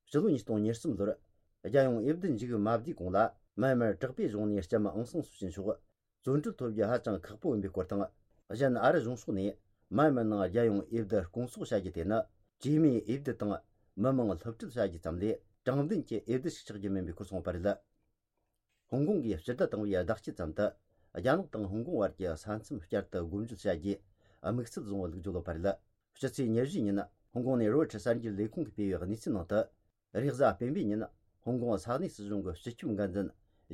ཕྱི་ལོ་ཉིས་སྟོང་ཉེར་གསུམ་ལོར། རྒྱལ་ཡོངས་འོས་བསྡུ་མཇུག་མ་བསྡུས་གོང་ལ། མཱན་མར་དྲག་པོའི་གཞུང་ནས་ལྕམ་ཨང་སང་སུའུ་ཅི་མཆོག་བཙོན་གྲོལ་ཐོབ་རྒྱུ་ཧ་ཅང་ཁག་པོ་ཡིན་པའི་སྐོར་དང་། གཞན་ཨ་རི་གཞུང་ཕྱོགས་ནས་མཱན་མར་ནང་རྒྱལ་ཡོངས་འོས་བསྡུ་སྐོང་ཚོགས་བྱ་རྒྱུ་དེ་ནི། གྲོས་མོལ་འོས་བསྡུ་དང་མི་མང་སློབ་ཁྲིད་བྱ་རྒྱུ་ཙམ་ལས་དྲང་བདེན་གྱི་འོས་བསྡུ་ཞིག་ཆགས་རྒྱུ་མིན་པའི་སྐོར་གསུངས་པ་རེད། ཧོང་ཀོང་གིས་སྤྱི་ཟླ་དང་པོའི་ཟླ་དཀྱིལ་ཙམ་དུ། རྒྱ་ནག་དང་ཧོང་ཀོང་བར་གྱི་ས་མཚམས་བསྐྱར་དུ་སྒོ་འབྱེད་བྱ་རྒྱུའི་དམིགས་ཚད་བཟུང་བ་ལུགས་བརྗོད་ཡོད་པ་རེད། ཕྱི་ཚེས་ཉེར་བཞི་ཉིན་ཧོང་ཀོང་ནས་རོའི་ཊར་གསར་འགྱུར་ལས་ཁུངས་ཀྱིས་སྤེལ་བའི་གནས་ཚུལ་ནང་དུ། རེས་གཟའ་སྤེན་པའི་ཉིན་ཧོང་ཀོང་ས་གནས་སྲིད་གཞུང་གི་སྤྱི་ཁྱབ་འགན་འཛིན་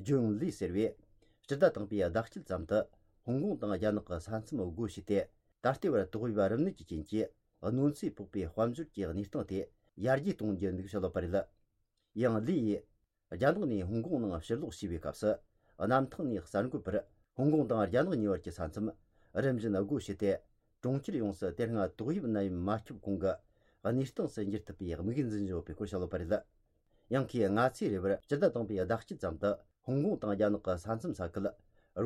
ཇོན་ལི་ཟེར་བས། སྤྱི་ཟླ་དང་པོའི་ཟླ་དཀྱིལ་ཙམ་དུ་ཧོང་ཀོང་དང་རྒྱ་ནག་གི་ས་མཚམས་སྒོ་ཕྱེས་ཏེ། ད་ལྟའི་བར་ཏོག་དབྱིབས་རིམས་ནད་ཀྱི་རྐྱེན་གྱིས་གནོད་འཚེ་ཕོག་པའི་དཔལ་འབྱོར་གྱི་གནས་སྟངས་དེ་ཡར་རྒྱས་གཏོང་རྒྱུ་འདུག་བཤད་ཡོད་པ་རེད། ཡང་ལི་ཡིས། རྒྱ་ནག་ནས་ཧོང་ཀོང་ནང་ཕྱིར་ལོག་བྱས་པའི་སྐབས་སུ། གནམ་ཐང་ནས་གསར་འགོད་པར་ཧོང་ཀོང་དང་རྒྱ་ནག་གཉིས་བར་གྱི་ས་མཚམས་རིམ་བཞིན་སྒོ་ཕྱེ་སྟེ། གྲོང་ཁྱེར་ཡོངས་སུ་དེ་སྔ་ཏོག་དབྱིབས་ནད་ཡམས་མ་ཁྱབ་གོང་གི་གནས་སྟངས་སུ་འགྱུར་ཐུབ་པའི་དམིགས་ཡུལ་འཛིན་བཞིན་ཡོད་པའི་སྐོར་བཤད་ཡོད་པ་རེད། ཡང་ཁོས་སྔ་ཚེས་རེ་བར་སྤྱི་ཟླ་དང་པོའི་ཟླ་དཀྱིལ་ཙམ་དུ་ཧོང་ཀོང་དང་རྒྱ་ནག་གི་ས་མཚམས་ས་ཁུལ་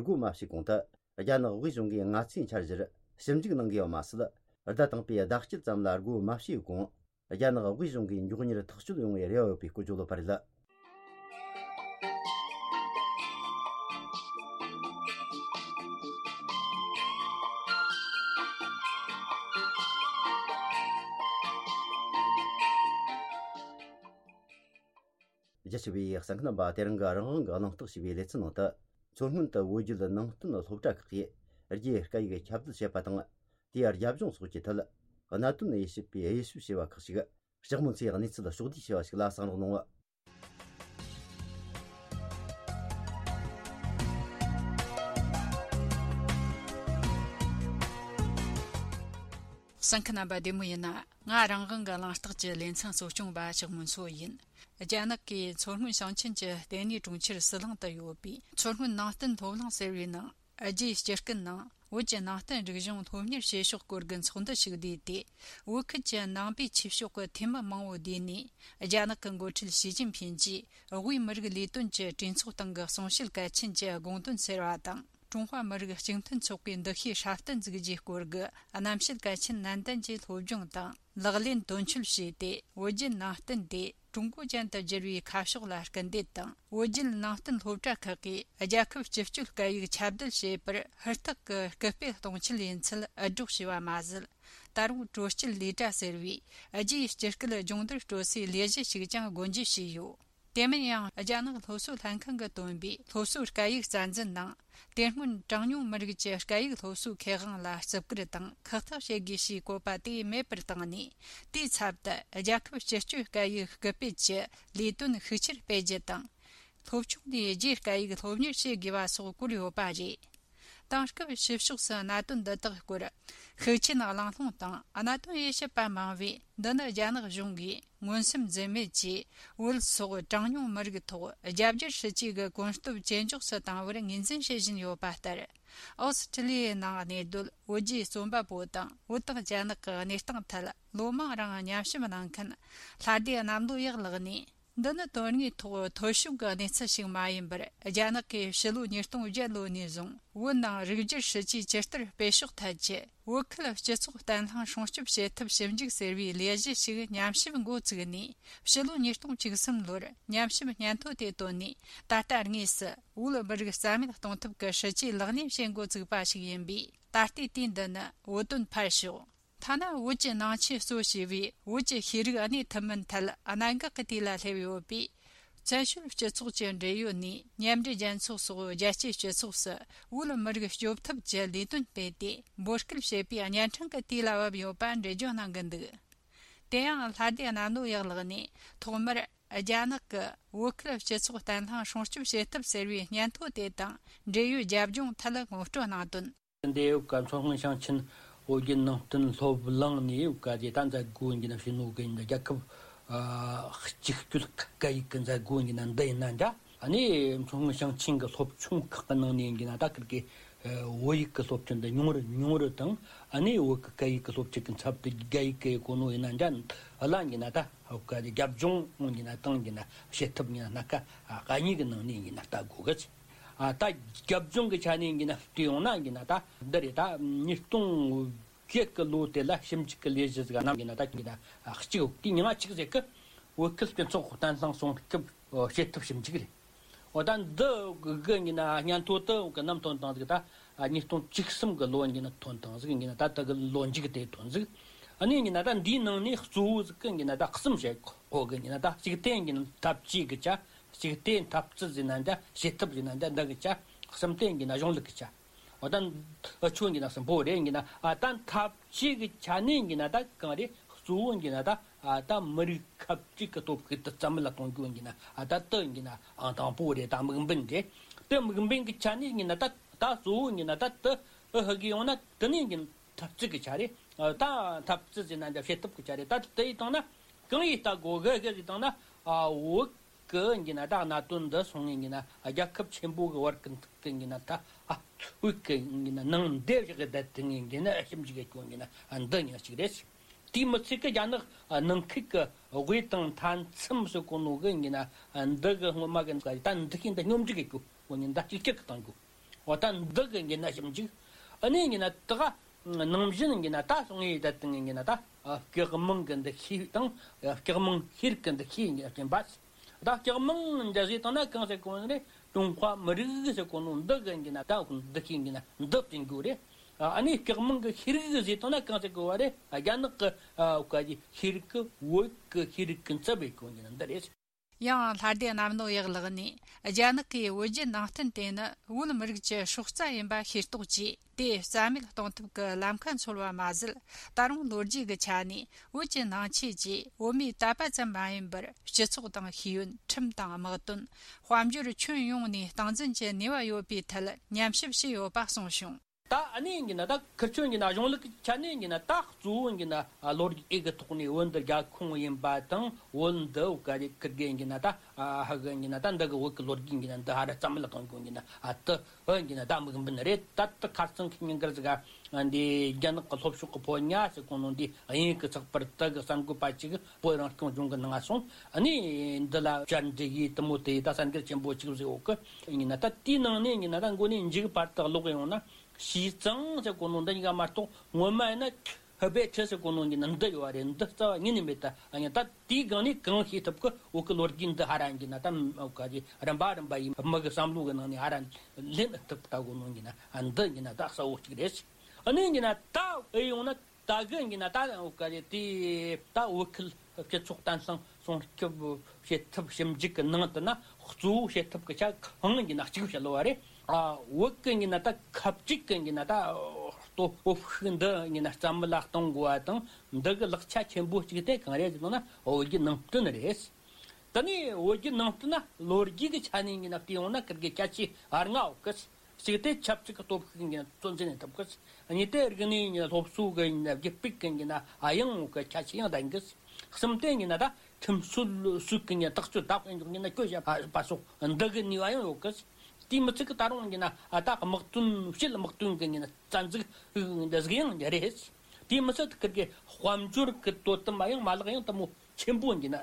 སྒོ་མ་ཕྱེ་གོང་དུ། རྒྱ་ནག་དབུས་གཞུང་གིས་སྔ་ཚེས་འཆར་གཞིར་ཞིབ་འཇུག་གནང་གི་ཡོད་མ་ཟད། ཟླ་དང་པོའི་ཟླ་དཀྱིལ་ཙམ་ལ་སྒོ་མ་ཕྱེ་གོང་། རྒྱ་ནག་དབུས་གཞུང་གིས་མགྱོགས་མྱུར་ཐག་གཅོད་ཡོང་བའི་རེ་བ་ཡོད་པའི་སྐོར་བརྗོད་ཡོད་པ་རེད། རྒྱ་ཆེ་བའི་གསན་མཁན་རྣམ་པ། དེ་རིང་གི་རང་དབང་གི་གླེང་སྟེགས་ཞེས་པའི་ལེ་ཚན་ནང་དུ། མཚོ་སྔོན་དུ་བོད་བརྒྱུད་ནང་བསྟན་སློབ་གྲྭ་ཁག་གིས་ རྒྱའི་སྐད་ཡིག་ཁྱབ་གདལ་བྱེད་པ་དང་། དེའི་རྒྱབ་ལྗོངས་སོགས་ཀྱི་ཐད། གནད་དོན་དབྱེ་ཞིབ་པས་དབྱེ་ཞིབ་བྱས་པ་ཁག་ཅིག་ལྕགས་མོ་མཚོའི་གནས་ཚུལ་ཕྱོགས་བསྡུས་བྱས་པ་ཞིག་ལ་གསན་རོགས་གནང་། གསན་མཁན་རྣམ་པ་བདེ་མོ་ཡིན་ན། ང་རང་དབང་གི་གླེང་སྟེགས་ཀྱི་ལེ་ཚན་གཙོ་སྐྱོང་པ་ལྕགས་མོ་མཚོ་ཡིན། རྒྱ་ནག་གིས་མཚོ་སྔོན་ཞིང་ཆེན་གྱི་ལྟེ་གནས་གྲོང་ཁྱེར་ཟི་ལིང་དུ་ཡོད་པའི་མཚོ་སྔོན་ནང་བསྟན་སློབ་གླིང་ཟེར་བའི་ནང་། རྒྱའི་སྤྱི་སྐད་ནང་བོད་ཀྱི་ནང་བསྟན་རིག་གཞུང་སློབ་གཉེར་བྱེད་ཕྱོགས་སྐོར་གྱི་ཚོགས་འདུ་ཞིག་བསྡུས་ཏེ། བོད་ཁུལ་གྱི་ནང་པའི་ཆོས་ཕྱོགས་ཀྱི་འཐུས་མི་མང་བོ་བསྡུས་ནས། རྒྱ་ནག་གི་འགོ་ཁྲིད་ཞི་ཅིན་ཕིན་གྱིས་དབུས་མི་རིགས་ལས་དོན་གྱི་གྲོས་ཚོགས་སྟེང་གི་གསུང་བཤད་གལ་ཆེན་གྱི་དགོངས་དོན་ཟེར་བ་དང་། ཀྲུང་ཧྭ་མི་རིགས་གཅིག་མཐུན་ཚོགས་པའི་འདུ་ཤེས་སྲ་བརྟན་འཛུགས་རྒྱུའི་སྐོར་གྱི་རྣམ་བཤད་གལ་ཆེན་ནན་ཏན་གྱིས་སློབ་སྦྱོང་དང་ལག་ལེན་དོན་འཁྱོལ་བྱས་ཏེ། བོད་བརྒྱུད་ནང་བསྟན་དེ་ཀྲུང་གོ་ཅན་དུ་བསྒྱུར་བའི་ཁ་ཕྱོགས་ལ་སྐུལ་འདེད་དང་། བོད་བརྒྱུད་ནང་བསྟན་སློབ་གྲྭ་ཁག་གིས་རྒྱལ་ཁབ་སྤྱི་སྤྱོད་སྐད་ཡིག་ཁྱབ་གདལ་བྱེད་པར་ཧུར་ཐག་གིས་སྐུལ་སྤེལ་གཏོང་ཆེད་ཡིན་ཚུལ་འུད་སྒྲོག་བྱས་པ་མ་ཟད། ད་རུང་དྲོ་སྐྱིད་ལས་གྲྭ་ཟེར་བའི་རྒྱའི་སྤྱི་སྐད་སྦྱོང་བརྡར་སྤྲོད་སའི་ལས་གཞི་ཞིག་ཀྱང་སྒོ་འབྱེད་བྱས་ཡོད། དེ་མིན་ཡང་རྒྱ་ནག་སློབ་གསོ་ལྷན་ཁང་གིས་བཏོན་པའི་སློབ་གསོའི་སྐད་ཡིག་རྩ་འཛིན་ནང་། དེ་སྔོན་གྲངས་ཉུང་མི་རིགས་ཀྱི་སྐད་ཡིག་སློབ་གསོའི་ཁེ་དབང་ལ་བརྩི་བཀུར་དང་ཁག་ཐེག་བྱེད་དགོས་ཞེས་བཀོད་པ་དེ་མེད་པར་བཏང་ནས། དེའི་ཚབ་ཏུ་རྒྱལ་ཁབ་སྤྱི་སྤྱོད་སྐད་ཡིག་སྐུལ་སྤེལ་གྱི་ལས་དོན་ཤུགས་ཆེར་སྤེལ་རྒྱུ་དང་། སློབ་ཆུང་ནས་རྒྱའི་སྐད་ཡིག་སློབ་གཉེར་བྱེད་དགོས་པ་སོགས་བཀོད་ཡོད་པ་རེད། དེང་སྐབས་ཕྱི་ཕྱོགས་སུ་གནད་དོན་འདི་དག་སྐོར་ཤུགས་ཆེན་གླེང་སློང་དང་། གནད་དོན་དབྱེ་ཞིབ་པ་མང་བས། འདི་ནི་རྒྱ་ནག་གཞུང་གིས་མངོན་སུམ་འཛེམ་མེད་ཀྱིས་བོད་སོགས་གྲངས་ཉུང་མི་རིགས་ཐོག་རྒྱ་སྒྱུར་སྲིད་ཇུས་ཀྱི་གོམ་སྟབས་ཇེ་མགྱོགས་སུ་བཏང་བར་ངོས་འཛིན་བྱེད་བཞིན་ཡོད་པ་ལྟར། ཨོ་སི་ཀྲི་ལི་ཡའི་ནང་གནས་སྡོད་བོད་བརྒྱུད་རྩོམ་པ་པོ་དང་། བོད་དང་རྒྱ་ནག་གི་གནས་སྟངས་ཐད་ལོ་མང་རིང་ཉམས་ཞིབ་གནང་མཁན་ལྷ་སྡེ་གནམ་ལོ་ཡག་ལགས་ནས། འདི་ནི་དོན་དངོས་ཐོག་འཐོར་ཞིག་གི་གནས་ཚུལ་ཞིག་མ་ཡིན་པར། རྒྱ་ནག་གིས་ཕྱི་ལོ་ཉིས་སྟོང་བརྒྱད་ལོ་ནས་བཟུང་བོད་ནང་རིགས་སྒྱུར་སྲིད་ཇུས་ཇི་ལྟར་སྤེལ་ཕྱོགས་ཐད་ཀྱི་བོད་ཁུལ་སྤྱི་ཚོགས་བརྟན་ལྷིང་སྲུང་སྐྱོབ་བྱེད་ཐབས་ཞིབ་འཇུག་ཟེར་བའི་ལས་གཞི་ཞིག་ཉམས་ཞིབ་འགོ་བཙུགས་ནས། ཕྱི་ལོ་ཉིས་སྟོང་བཅུ་གསུམ་ལོར་ཉམས་ཞིབ་སྙན་ཐོ་དེ་བཏོན་ནས། ད་ལྟ་དངོས་སུ་བོད་མི་རིགས་རྩ་མེད་གཏོང་ཐབས་ཀྱི་སྲིད་ཇུས་ལག་ལེན་བྱེད་འགོ་བཙུགས་པ་ཞིག་ཡིན་པས། ད་ལྟའི་དུས་འདི་ནི་བོད་དོན་ཕར་ཞོག་ཐ་ན་བོད་ཀྱི་ནང་ཆོས་གཙོ་བྱས་པའི་བོད་ཀྱི་ཤེས་རིག་གནས་ཐུན་མིན་ཐད་གནད་འགག་གི་དུས་ལ་སླེབས་ཡོད་པས། བཙན་བྱོལ་སྤྱི་ཚོགས་ཀྱི་འབྲེལ་ཡོད་ནས་མཉམ་འབྲེལ་རྒྱལ་ཚོགས་སོགས་རྒྱལ་སྤྱིའི་སྤྱི་ཚོགས་སུ་བོད་མི་རིགས་སྐྱོབ་ཐབས་ཀྱི་ལས་དོན་སྤེལ་ཏེ། འབོད་སྐུལ་བྱེད་པའི་གཉན་འཕྲང་གི་དུས་ལ་བབ་ཡོད་པ་འགྲེལ་བརྗོད་གནང་གི་འདུག་དེ་ཡང་ལྷ་སྡེ་གནམ་ལོ་ཡག་ལགས་ནས་ཐོག་མར་རྒྱ་ནག་གི་བོད་ཁུལ་སྤྱི་ཚོགས་བརྟན་ལྷིང་སྲུང་སྐྱོབ་བྱེད་ཐབས་ཟེར་བའི་སྙན་ཐོ་དེ་དང་འབྲེལ་ཡོད་རྒྱབ་ལྗོངས་ཐད་ངོ་སྤྲོད་གནང་དོན། འདི་ཡོད་ཀ་མཚོ་སྔོན་ཞིང་ཆེན་བོད་བརྒྱུད་ནང་བསྟན་སློབ་གླིང་ནས་ཡོད་ཀ་དེ་ད་མཛད་སྒོ་ཡིན་གྱི་ན་ཕྱི་ནོ་གི་ཡིན་ན་རྒྱལ་ཁབ་ཨ་གཅིག་སྤྱོད་སྐད་ཡིག་གི་མཛད་སྒོ་ཡིན་གྱི་ན་འདི་ཡིན་ན་འདྲ། ཨ་ནི་མཚོ་སྔོན་ཞིང་ཆེན་གྱི་སློབ་ཆུང་ཁག་གི་ནང་ནས་ཡིན་གྱི་ན་ད་ཁིར་གི་བོད་ཡིག་གི་སློབ་ཁྲིད་འདི་ཉུང་རུ་ཉུང་རུ་དང་། ཨ་ནི་བོད་ཀྱི་སྐད་ཡིག་གི་སློབ་ཁྲིད་ཀྱི་ཚབ་ཏུ་རྒྱ་ཡིག་གི་གོ་ནོ་ཡིན་ན་འདྲ། ཨ་ལ་ཡིན་གྱི་ན་ད་བོད་ཀྱི་རྒྱབ་ལྗོངས་ཡིན་གྱི་ན་དང་ཡིན་གྱི་ན་བྱེད་ཐབས་ཡིན་ན་སྣ་ཁ་གཉིས་ཀྱི་ནང་ནས་ཡིན་གྱི་ན་ལྟ་དགོས་གི། ཨ་ད་རྒྱབ་ལྗོངས་ཀྱི་ཆ་ནས་ཡིན་ན་བལྟས་ཡོང་ན་ཡིན་ན་ད་འདི་རེད། ད་ཉིས་སྟོང་བརྒྱད་ཀྱི་ལོ་དེ་ལ་ཞིབ་འཇུག་གི་ལས་གཞི་ཟིག་གནང་ཡིན་ན་ད་ཡིན་ན་གཅིག་དེ་མྱིང་ང་གཅིག་ཟེར་གི། བོད་ཁུལ་སྤྱི་ཚོགས་བརྟན་ལྷིང་སྲུང་སྐྱོབ་བྱེད་ཐབས་ཞིབ་འཇུག་རེད། འོ་ད་འདི་གི་ཡིན་ན་སྙན་ཐོ་དུ་གི་ནམ་ཐོན་དང་ཟིག་ད་ཉིས་སྟོང་བཅུ་གསུམ་གི་ལོ་ཡིན་ན་ཐོན་དང་ཟིག་ཡིན་ན་ད་ད་གི་ལོ་མཇུག་དེ་ཐོན་ཟིག་ཨ་ནི་ཡིན་ན་ད་འདིའི་ནང་ནས་གཙོ་བོ་ཟིག་གི་ཡིན་ན་ད་གསུམ་བཤད་གོ་གི་ཡིན་ན་ད་གཅིག་དེ་ཡིན་ན་འཐབ་ཇུས་གི་ཆ། གཅིག་དེ་འཐབ་རྩོད་ཟེར་ན་འདྲ། བྱེད་ཐབས་ཟེར་ན་འདྲ། འདི་གི་ཆ། གསུམ་དེ་ཡིན་ན་གཞུང་ལུགས་གི་ཆ། འོ་ད་འུ་ཆོ་ཡིན་ན་གསུམ་པོ་རེད་ཡིན་ན། ཨ་ད་འཐབ་ཇུས་གི་ཆ་ནས་ཡིན་ན་ད་གང་རེད། གཙོ་བོ་ཡིན་ན་ད་ཨ་ད་མི་རིགས་ཁ་གཅིག་གི་སྟོབས་ཤུགས་དེ་རྩ་མེད་ལ་གཏོང་རྒྱུ་ཡིན་ན། ཨ་ད་དེ་ཡིན་ན་ཨང་དང་པོ་རེད། ད་དམིགས་འབེན་རེད། དེ་དམིགས་འབེན་གི་ཆ་ནས་ཡིན་ན་ད་ད་གཙོ་བོ་ཡིན་ན་ད་དེ་ཨ་ཧ་གི་ཡོང་ན་དེ་ནས་ཡིན་འཐབ་རྩོད་གི་ཆ་རེད། ཨ་ད་འཐབ་རྩོད་ཟེར་ན་འདྲ། བྱེད་ཐབས་གི་ཆ་རེད། ད་དེ་ཡིན་བཏང་ན་གང་ཡིན་ལྟ་དགོས་གི་གི་ཟེར་བཏང་ན། ཨ་བོད་གི་ཡིན་ན་ད་གནད་དོན་འདི་སོང་ངེ་ཡིན་ན་རྒྱལ་ཁབ་ཆེན་པོ་གི་བར་གི་འདི་གི་ཡིན་ན་ད་ཨ་བོད་གི་ཡིན་ན་ནང་འདེབས་བཞག་གི་བསྡད་དེ་ངེ་ཡིན་ན་ཞིབ་འཇུག་གི་སྐྱོན་ཡིན་ན་འདི་ཉག་གཅིག་རེད། དེའི་མི་ཚད་གི་རྒྱ་ནག་ནང་ཁུལ་གི་དབུས་དང་མཐའ་མཚམས་སུ་གོ་ནོ་གི་ཡིན་ན་འདི་གི་སྔོན་མ་གི་ད་འདི་གི་འདི་སྙོམས་འཇུག་གི་སྐྱོན་ཡིན་ན་ད་གཅིག་གཅིག་གི་བཏང་རྒྱུ། འོ་ད་འདི་གི་ཡིན་ན་ཞིབ་འཇུག་ཨ་ནི་ཡིན་ན་ད་ག་ནང་བཞིན་ཡིན་ན་ད་སོང་ངེ་ད་དེ་ཡིན་ན་ད་སྐྱག་མང་གི་འདུ་ཤེས་དང་སྐྱག་མང་ཤེས་རིག་གི་འདུ་ཤེས་ཡིན་ན་བསྟན་པ། ད་སྐྱག་མང་འདྲ་ཟེར་བཏང་ན་གང་ཟེར་གོ་ནི་རེད། ཀྲུང་ཧྭ་མི་རིགས་ཟེར་གོ་ནོ་འདི་གི་ཡིན་ན་ད་འདུ་ཤེས་ཡིན་ན་འདི་བསྟན་རྒྱུ་རེད། ཨ་ནི་སྐྱག་མང་གི་ཤེས་རིག་ཟེར་བཏང་ན་གང་ཟེར་གོ་བ་རེད། རྒྱ་ནག་གི་ཨ་ག་གི་ཤེས་རིག་གི་བོད་གི་ཤེས་རིག་གི་རྩ་བའི་གོ་ཡིན་ན་འདི་རེད། ཡང་ལྷ་སྡེ་གནམ་ལོ་ཡག་ལགས་ནས། རྒྱ་ནག་གིས་བོད་བརྒྱུད་ནང་བསྟན་དེ་ནི་བོད་མི་རིགས་ཀྱི་སྲོག་རྩ་ཡིན་པ་ཤེས་རྟོགས་ཀྱིས། དེ་རྩ་མེད་གཏོང་ཐབས་ཀྱི་ལམ་ཁ་འཚོལ་བ་མ་ཟད། ད་རུང་ལོ་རྒྱུས་ཀྱི་ཆ་ནས་བོད་ཀྱི་ནང་ཆོས་ཀྱིས་བོད་མིའི་དད་པ་ཙམ་མ་ཡིན་པར། སྤྱི་ཚོགས་དང་ཤེས་ཡོན། ཁྲིམས་དང་དམག་དོན། དཔལ་འབྱོར་ཁྱོན་ཡོངས་ནས་སྟངས་འཛིན་གྱི་ནུས་པ་ཡོད་པའི་ཐད་ཉམས་ཞིབ་བྱས་ཡོད་པ་གསུངས་བྱུང་། ད་ཨ་ནི་ཡིན་གྱི་ན། ད་ཁིར་ཆོ་ཡིན་གྱི་ན། གཞུང་ལུགས་ཀྱི་ཆ་ནས་ཡིན་གྱི་ན། ད་གཙོ་བོ་ཡིན་གྱི་ན་ལོ་རྒྱུས་ཀྱི་ཐོག་ནས་བོད་འདི་རྒྱལ་ཁོངས་ཡིན་པ་དང་། བོད་འདི་བོད་ག་རེ་ཁིར་གི་ཡིན་གྱི་ན། ད་ཧ་གི་ཡིན་གྱི་ན། ད་འདི་གི་བོད་ཀྱི་ལོ་རྒྱུས་ཡིན་གྱི་ན། འདི་ཧ་ར་རྩ་མེད་ལ་གཏོང་དགོས་ཡིན་གྱི་ན། ཨ་དེ་བོད་ཡིན་གྱི་ན་ད་དམིགས་འབེན་རེད། ད་དེ་ཁར་སང་ཁི་ཉིན་གར་ཟིག་ག་འདི་རྒྱ་ནག་གི་ལྷོ་ཕྱོགས་ཀྱི་ཕོ་ཉ་ཟེར་གོ་ནོ་འདི་དབྱིན་ཡུལ་གྱི་ཚགས་པར་དེ་གི་གསར་འགོད་པ་ཅིག་བོད་རང་སྐྱོང་ལྗོངས་གི་ནང་ང་སོང་། ཨ་ནི་འདི་ལ་བཅར་འདྲི་ཡིས་དེ་མོ་དེ་ད་གསར་འགྱུར་ཆེན་པོ་ཅིག་བཟོས་ཡོད་གི་ཡིན་གྱི་ན། ད་དེའི་ནང་ནས་ཡིན་གྱི་ན། ད་མགོ་ནས་མཇུག་བར་དུ་ཀློག་ཡོང་ན། ཞི་ཙང་ཟེར་གོ་ནོ་འདི་གཉིས་ཀ་མ་གཏོགས། ངོ་མ་ཡིན་ན་ཧི་བེ་ཁྲི་ཟེར་གོ་ནོ་ཡིན་གྱི་ན་འདི་ཡོད་རེད། འདི་རྩ་བ་ཉིད་ནས་མེད། ད་ཨ་ནི་ད་དེའི་སྒང་ནས་གང་ཤེས་ཐུབ་གི། བོད་གི་ལོ་རྒྱུས་འདི་ཧ་ར་ཡིན་གྱི་ན། ད་ག་རེ་རིམ་པ་རིམ་པ་ཡིན། མི་གི་བསམ་བློ་གི་ནང་ནས་ཧ་ར་ལེན་ཐུབ་ལྟ་གོ་ནོ་ཡིན་གྱི་ན། ཨ་འདི་ཡིན་གྱི་ན་ད་གསལ་བོ་གཅིག་རེད། ཨ་ནི་ཡིན་གྱི་ན་ད་ཨེ་ཡོང་ན། ད་གི་ཡིན་གྱི་ན། ད་བོད་ག་རེ་དེ་ད་བོད་ཁུལ་སྤྱི་ཚོགས་བརྟན་ལྷིང་སྲུང་སྐྱོབ་བྱེད་ཐབས་ཞིབ་འཇུག་གི་ནང་དུ་ན། གཙོ་བོ་བྱེད་ཐབས་ཀྱི་ཆ་གང་ཡིན་གྱི་ན་གཅིག་བཤད་ལོ་བ་རེད། ཨ་བོད་གི་ཡིན་གྱི་ན་ད་ཁ་གཅིག་གི་ཡིན་གྱི་ན། ད་སྟོབས་ཤུགས་འདི་ཡིན་གྱི་ན་རྩ་མེད་ལ་གཏོང་དགོས་པ་དང་། འདི་གི་ལེགས་ཆ་ཆེན་པོ་གཅིག་དེ་གང་རེད་ཟེར་ན། བོད་བརྒྱུད་ནང་བསྟན་རེད། ད་ནི་བོད་བརྒྱུད་ནང་བསྟན་ན་ལོ་རྒྱུས་ཀྱི་ཆ་ནས་ཡིན་གྱི་ན་བལྟས་ཡོང་ན། ཁིར་གི་ཁྱད་ཆོས་ལྔ་ཡོད་གི། གཅིག་དེ་ཆབ་སྲིད་ཀྱི་སྟོབས་ཤུགས་ཀྱི་ཚོད་འཛིན་ཐུབ་གི། གཉིས་དེ་རིག་གནས་ཀྱི་སློབ་གསོ་གི་རྒྱུད་སྤེལ་གྱི་ཡིན་གྱི་ན་ཨ་ཡང་གི་ཁྱད་ཆོས་ཡང་ལྡན་གི། གསུམ་དེ་ཡིན་གྱི་ན་ད་ཁྲིམས་སྲོལ་སྲོལ་གྱི་ཡིན་གྱི་ན་ཐག་གཅོད་ད་ཡིན་གྱི་ན་གྱོད་བཤད་པ་སོགས་འདི་གི་ནུས་པ་ཡང་ཡོད་གི། དེ་མི་ཚད་གི་ད་རུང་ཡིན་གྱི་ན་ཨ་ད་དམག་དོན། ཕྱིའི་དམག་དོན་གྱི་ཡིན་གྱི་ན་རྩ་འཛུགས་འདི་ཟིག་ཡང་རེད། དེ་མི་ཚད་ཁིར་གི་དཔལ་འབྱོར་གྱི་དོ་དམ་པ་ཡང་མ་ལག་ཡང་དེ་མོ་ཆེན་པོ་ཡིན་གྱི་ན་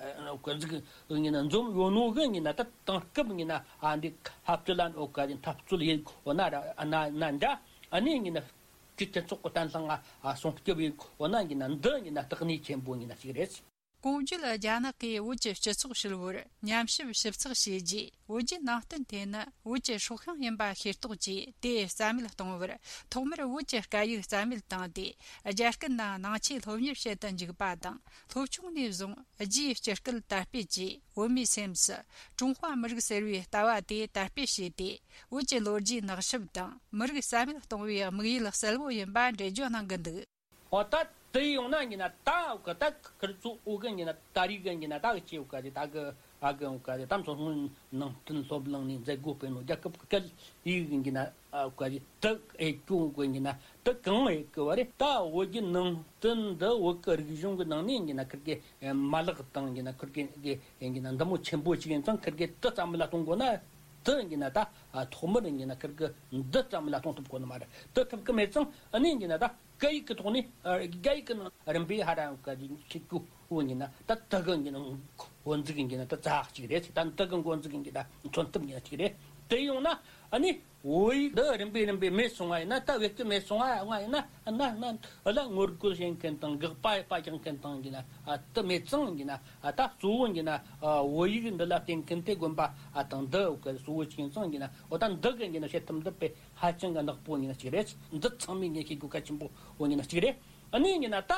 གཟིགས་ཡིན་གྱི་ན་འཛོམས་ཡོད་ནོ་གི་ཡིན་གྱི་ན། ད་དེང་སྐབས་ཡིན་གྱི་ན་ཨ་འདི་འཐབ་རྩོད་ལ་འོ་ག་འཐབ་རྩོད་ཡིན་འོ་ན་ར་ན་ན་འདྲ། ཨ་ནི་ཡིན་གྱི་ན་སྤྱི་སྤྱི་ཚོགས་ཀྱི་བརྟན་ལྷིང་ང་སྲུང་སྐྱོབ་ཡིན་འོ་ན་ཡིན་གྱི་ན་འདི་ཡིན་གྱི་ན་དེ་གནད་ཆེན་པོ་ཡིན་གྱི་ན་གཅིག་རེད། གོང་བརྗོད་རྒྱ་ནག་གིས་བོད་ཀྱི་སྤྱི་ཚོགས་ཧྲིལ་བོར་ཉམས་ཞིབ་ཞིབ་ཚགས་བྱས་རྗེས། བོད་བརྒྱུད་ནང་བསྟན་དེ་ནི་བོད་ཀྱི་སྲོག་ཤིང་ཡིན་པ་ཤེས་རྟོགས་ཀྱིས། དེ་རྩ་མེད་གཏོང་བར་ཐོག་མར་བོད་ཀྱི་སྐད་ཡིག་རྩ་མེད་བཏང་སྟེ། རྒྱ་སྐད་ནང་ནང་ཆོས་སློབ་གཉེར་བྱེད་དུ་འཇུག་པ་དང་། སློབ་ཆུང་ནས་བཟུང་རྒྱའི་སྤྱི་སྐད་དར་སྤེལ་གྱིས། བོད་མིའི་སེམས་སུ་ཀྲུང་ཧྭ་མི་རིགས་ཟེར་བའི་ལྟ་བ་དེ་དར་སྤེལ་བྱས་ཏེ། བོད་ཀྱི་ལོ་རྒྱུས་ནག་ཞིབ་དང་མི་རིགས་རྩ་མེད་གཏོང་བའི་དམིགས་ཡུལ་གསལ་བོ་ཡིན་པ་འགྲེལ་བརྗོད་གནང་གི་འདུག། འོ་ད་དེ་ཡོང་ན་ཡིན་གྱི་ན། ད་འོ་ག་ད་ཁིར་ཚོ་འོ་གི་ཡིན་གྱི་ན། ད་རེས་གི་ཡིན་གྱི་ན། ད་གི་ཆེ་འོ་ག་དེ་ད་གི་ཨ་གི་འོ་ག་དེ་ད་མཚོ་སྔོན་ནང་བསྟན་སློབ་གླིང་ནས་མཛད་སྒོ་སྤེལ་ནོ་རྒྱལ་ཁབ་ཀྱི་སྐད་ཡིག་ཡིན་གྱི་ན། ཨ་འོ་ག་དེ་དེ་ཨེ་ཀྱོ་འོ་གི་ཡིན་གྱི་ན། དེ་གང་ཨེ་གི་བ་རེད། ད་བོད་བརྒྱུད་ནང་བསྟན་འདི་བོད་ཀྱི་རིག་གཞུང་གི་ནང་ནས་ཡིན་གྱི་ན། ཁིར་གི་མ་ལག་དང་ཡིན་གྱི་ན། ཁིར་གི་གི་ཡིན་གྱི་ན་འདི་མོ་ཆེན་པོ་ཞིག་ཡིན་ཙང་། ཁིར་གི་དེ་རྩ་མེད་ལ་གཏོང་དགོས་ན། དེ་ཡིན་གྱི་ན་ད་ཐོག་མར་ཡིན་གྱི་ན་ཁིར་གི་འདི་རྩ་མེད་ལ་གཏོང་ཐུབ་དགོས་ནི་མ་རེད། དེ་ཐུབ་གི་མེད་ཙང་། ཨ་ནི་ཡིན་གྱི་ན་ད་སྐད་ཡིག་གི་ཐོག་ནས། ཨ་རྒྱ་ཡིག་གི་ནང་རིམ་པས་ཧ་ར་ག་ཞིག་གི་འོ་ཡིན་ན། ད་དེ་གི་ཡིན་གྱི་ན་འགོ་འཛུགས་ཡིན་གྱི་ན་ད་རྩ་གཅིག་རེད། ད་དེ་གི་འགོ་འཛུགས་ཡིན་གྱི་ད་མཚོན་ཐུབ་ཡིན་ན་གཅིག་རེད། དེ་ཡོང་ན་ཨ་ནི་བོད་ཡིག་འདི་རིམ་པས་རིམ་པས་མེད་སོང་བ་ཡིན་ན། ད་བེད་སྤྱོད་མེད་སོང་བ་ཡིན་ན། ཨ་ན་ན་ལ་ངོ་རྒོལ་བྱེད་མཁན་དང་། དགག་པ་ཡེད་པ་རྒྱག་མཁན་དང་ཡིན་གྱི་ན། ཨ་དེ་མེད་ཙང་ཡིན་གྱི་ན། ཨ་ད་གཙོ་བོ་ཡིན་གྱི་ན། ཨ་བོད་ཡིག་འདི་ལ་བརྟེན་མཁན་དེ་དགོན་པ་ཨ་དང་འདི་འོ་ག་གཙོ་བོ་ཅིག་ཡིན་ཙང་ཡིན་གྱི་ན། འོ་ད་འདི་གི་ཡིན་གྱི་ན་བྱེད་ཐབས་འདི་དཔེ་ཧ་ཅང་གི་ནག་པོ་ཡིན་གྱི་ན་གཅིག་རེད། འདི་ཚང་མས་ངས་ཤེས་དགོས་གལ་ཆེན་པོ་འོ་ཡིན་གྱི་ན་གཅིག་རེད། ཨ་ནི་ཡིན་གྱི་ན་ད་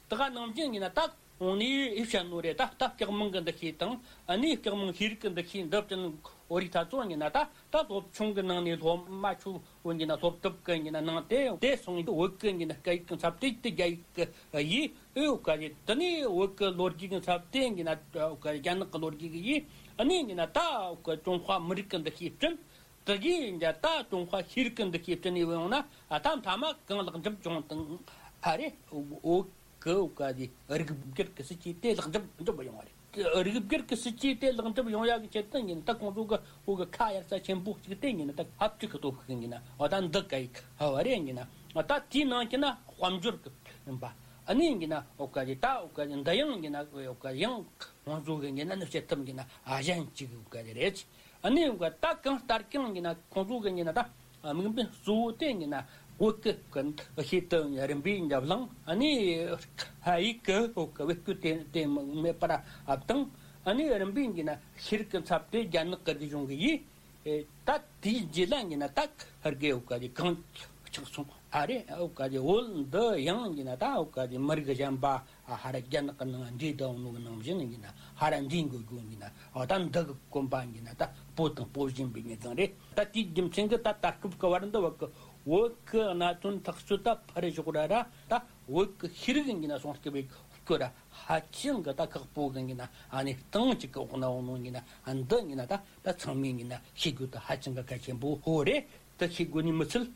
དེ་ག་ནང་བཞིན་ཡིན་གྱི་ན། ད་གོང་ནས་ཡིད་བཤད་ནོ་རེད། ད་ད་སྐྱག་མིང་གི་འདུ་ཤེས་དང་། ཨ་ནི་སྐྱག་མིང་ཤེས་རིག་གི་འདུ་ཤེས་འདི་བསྟན། བོད་རིགས་ད་ཚོ་ཡིན་གྱི་ན། ད་ད་སློབ་ཆུང་གི་ནང་ནས་སློབ་མ་ཆོ་འོ་ཡིན་གྱི་ན་སློབ་དེབ་གི་ཡིན་གྱི་ན་ནང་དེ་དེ་སོང་། བོད་གི་ཡིན་གྱི་ན་སྐད་ཡིག་གི་འཚབ་དེ་དེ་རྒྱ་ཡིག་གི་ཡིས་འོ་ག་རེད། དེ་ནས་བོད་གི་ལོ་རྒྱུས་གི་འཚབ་དེ་ཡིན་གྱི་ན་འོ་ག་རྒྱ་ནག་གི་ལོ་རྒྱུས་གི་ཡིས། ཨ་ནི་ཡིན་གྱི་ན་ད་འོ་ག་ཀྲུང་ཧྭ་མི་རིགས་གི་འདུ་ཤེས་བསྐྲུན། དེ་གིས་ཡིན་གྱི་ད་ཀྲུང་ཧྭ་ཤེས་རིག་གི་འདུ་ཤེས་བསྐྲུན་ནས་ཡོང་ན། ཨ་ད་མཐའ་མ་གང་ལེགས་འགྲུབ་བྱུང་དང་ཨ་རེད། འོ་གི་འོ་ག་དེ་རིགས་སྒེར་གི་སྲིད་ཇུས་དེ་ལེགས་འགྲུབ་འགྲུབ་ཡོང་བ་རེད། རིགས་སྒེར་གི་སྲིད་ཇུས་དེ་ལེགས་འགྲུབ་ཡོང་ཡག་གི་ཆེད་དུ་ཡིན་ན། ད་ཁོང་ཚོ་གི་འོ་གི་ཁ་གཡར་ས་ཆེན་པོ་གཅིག་དེ་ཡིན་ན། ད་ཧབ་ཅིག་གི་སྟོབས་ཤུགས་ཡིན་ན། འོ་ད་འདི་ག་ཡིག་ཧ་བ་རེད་ཡིན་ན། ད་དེའི་ནང་གི་ན་དཔལ་འབྱོར་གི་ཡིན་པ། ཨ་ནི་ཡིན་གྱི་ན་འོ་ག་དེ་ད་འོ་ག་དེ་འདི་ཡང་ཡིན་གྱི་ན་འོ་ག་ཡང་ཁོང་ཚོ་གི་ཡིན་ན་ནི་བྱེད་ཐབས་ཡིན་གྱི་ན་ཨ་གཞན་གཅིག་འོ་ག་དེ་རེད། ཨ་ནི་ད་གང་ལྟར་ཀྱང་ཡིན་ན་ཁོང་ཚོ་གི་ཡིན་ན་ད་དམིགས་འབེན་གཙོ་བོ་དེ་ཡིན་ན་བོད་ཀྱི་ཤེས་ལྟ་རིམ་པས་བླངས། ཨ་ནི་ཧ་ཡིག་གི་བོད་ཀྱི་བེད་སྤྱོད་དེ་དེ་མེད་པར་བཏང་། ཨ་ནི་རིམ་པས་ཡིན་ན་ཤེས་རིག་གི་འཚབ་དེ་རྒྱ་ནག་གི་རིག་གཞུང་གི་ཡིས། ད་དེའི་རྗེས་ལ་ཡིན་ན་ད་ཧར་གི་བོད་ཀྱི་གང་ཆགས་སོང་ཨ་རེད། བོད་ཀྱི་བོད་འདི་ཡང་ཡིན་ན་ད་བོད་ཀྱི་མི་རིགས་གཞན་པ། ཨ་ཧ་ར་རྒྱ་ནག་གི་ནང་འདྲེས་བསྡད་ཡོད་ནོ་གི་ནང་བཞིན་ཡིན་ན་ཧ་ར་འདྲེས་འགྲོ་རྒྱུ་ཡིན་ན། ཨ་ད་འདི་གི་གོམ་པ་ཡིན་ན་ད་སྤོ་དང་སྤོ་བཞིན་པའི་ངེས་ཙང་རེད། ད་དེའི་རྒྱུ་མཚན་གྱིས་ད་ད་སྐབས་ཀྱི་བར་འདི་བར་གི་བོད་ཀྱི་གནད་དོན་ཐག་གཅོད་ད་ཕར་ཞོག་ར་ར། ད་བོད་ཀྱི་ཤེས་རིག་ཡིན་ན་སྲུང་སྐྱོབ་པའི་སྐོར་ར་ཧ་ཅང་གི་ད་ཁག་པོ་གི་ཡིན་ན། ཨ་ནི་སྟེང་གཅིག་གི་འོག་ན་འོང་ནོ་ཡིན་ན། འདི་ཡིན་ན་ད་ད་ཚང་མས་ཡིན་ན་ཤེས་དགོས་ད་ཧ་ཅང་གི་གལ་ཆེན་པོ་ཧོ་རེད། དེ་ཤེས་དགོས་ནི་མི་ཚད་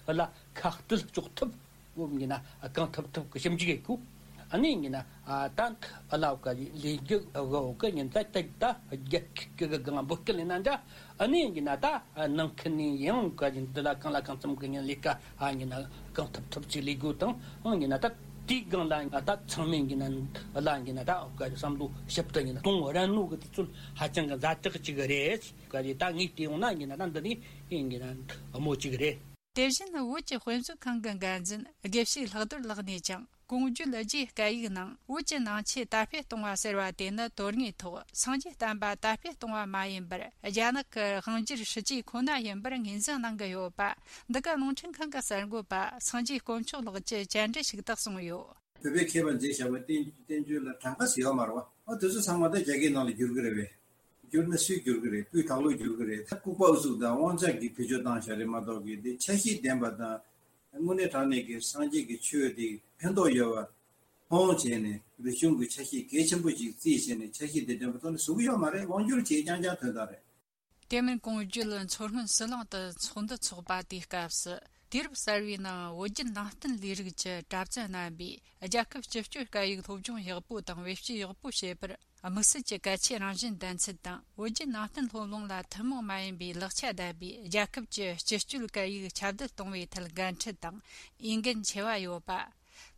ལ་ཁ་གཏད་གཅོག་ཐབས་ཡོད་ཡིན་ན་གང་ཐུབ་ཐུབ་གི་ཞིབ་འཇུག་ཡེད་དགོས། ཨ་ནི་ཡིན་ན་ཨ་ད་ཨ་ལ་བ་ག་ལས་རྒྱུ་ག་བ་ག་ཡིན་ད་ད་ད་རྒྱ་ཁི་གི་གང་འབོད་སྐུལ་ཡིན་ན་འདྲ། ཨ་ནི་ཡིན་ན་ད་ནང་ཁུལ་ནས་ཡང་བ་ག་ཡིན་འདི་ལ་གང་ལ་གང་འཚམ་གི་ཡིན་ལས་ཀ་ཨ་ཡིན་ན་གང་ཐུབ་ཐུབ་ཅིག་ལས་དགོས་དང་། ཨང་ཡིན་ན་ད་དེའི་སྒང་ལ་ད་ཚང་མས་ཡིན་ན་ཨ་ལ་ཡིན་ན་ད་བ་ག་བསམ་བློ་ཞིབ་ཏུ་ཡིན་ན་གཏོང་རན་ནོ་གི་དུས་ཚོད་ཧ་ཅང་གི་ཛ་དྲག་ཅིག་རེད། བ་ག་ད་ངས་བལྟས་ཡོང་ན་ཡིན་ན་ད་འདི་ནི་ཡིན་ན་དམོད་ཅིག་རེད། དེ་བཞིན་བོད་ཀྱི་དཔེ་མཛོད་ཁང་གི་འགན་འཛིན་དགེ་བཤེས་ལྷག་རྡོར་ལགས་ནས་ཀྱང་། ཀོང་ཇོའི་རྒྱའི་སྐད་ཡིག་ནང་བོད་ཀྱི་ནང་ཆོས་དར་སྤེལ་གཏོང་བ་ཟེར་བ་དེ་ནི་དོན་དངོས་ཐོག་སངས་རྒྱས་བསྟན་པ་དར་སྤེལ་གཏོང་བ་མ་ཡིན་པར། རྒྱ་ནག་གི་དབང་སྒྱུར་སྲིད་ཇུས་ཁོ་ན་ཡིན་པར་ངོས་འཛིན་གནང་གི་ཡོད་པ། འདི་ག་རླུང་འཕྲིན་ཁང་གི་གསར་འགོད་པ་སངས་རྒྱས་དཀོན་མཆོག་ལགས་ཀྱིས་བཅར་འདྲི་ཞུ་སྟེ་གསུངས་ཡོད། བོད་པའི་མཁས་པ་མཛད་བཞག་པའི་བསྟན་བསྟན་བཅོས་ལ་གྲངས་ཀ་ཟེར་ཡོད་མ་རེད་བ། ཨ་དེ་ཚོ་ཚང་མ་ད་རྒྱ་སྐད་ནང་ལ་བསྒྱུར་གི་རེད་བས། བསྒྱུར་ན་སུས་བསྒྱུར་གི་རེད། སྤུས་དག་ལོས་བསྒྱུར་གི་རེད། ད་ལྐུགས་པ་ཨུ་ཚུགས་དང་དབང་ཆ་གིས་བེད་སྤྱོད་བཏང་བཞག་རེད་མ་གཏོགས་གི། དེ་ཆ་ཤས་ལྡན་པ་དང་། དངོས་གནས་དྲང་གནས་ཀྱི་སངས་རྒྱས་ཀྱི་ཆོས་དེ་ཕན་ཐོགས་ཡོད་པ་མཐོང་བྱས་ནས། རིག་གཞུང་གི་ཆ་ཤས་གལ་ཆེན་པོ་ཅིག་བརྩིས་བྱས་ནས་ཆ་ཤས་དེ་ལྡན་པ་ཐོག་ནས་བཟོ་གི་ཡོད་མ་རེད། དབང་སྒྱུར་བྱས་རྐྱང་རྐྱང་ཐོན་སྟངས་རེད། དེ་མིན་ཀོང་ཇོ་མཚོ་སྔོན་ཟི་ལིང་དུ་ཚོགས་འདུ་འཚོགས་པ་དེའི་སྐབས་སུ། དུས་རབས་གསར་བའི་ནང་བོད་བརྒྱུད་ནང་བསྟན་ལས་རིགས་ཀྱི་གྲྭ་བཙུན་རྣམ་པས་རྒྱལ་ཁབ་སྤྱི་སྤྱོད་སྐད་ཡིག་སློབ་སྦྱོང་ཡག་པོ་དང་བེད་སྤྱོད་ཡག་པོ་བྱེད་པར། དམིགས་བསལ་གྱི་གལ་ཆེའི་རང་བཞིན་ལྡན་ཚུལ་དང་། བོད་བརྒྱུད་ནང་བསྟན་སློབ་གླིང་ལ་ཐུན་མོང་མ་ཡིན་པའི་ལེགས་ཆ་ལྡན་པའི་རྒྱལ་ཁབ་ཀྱི་སྤྱི་སྤྱོད་སྐད་ཡིག་ཁྱབ་གདལ་གཏོང་བའི་ཐད་འགན་འཁྲི་དང་འོས་འགན་ཆེ་བ་ཡོད་པ།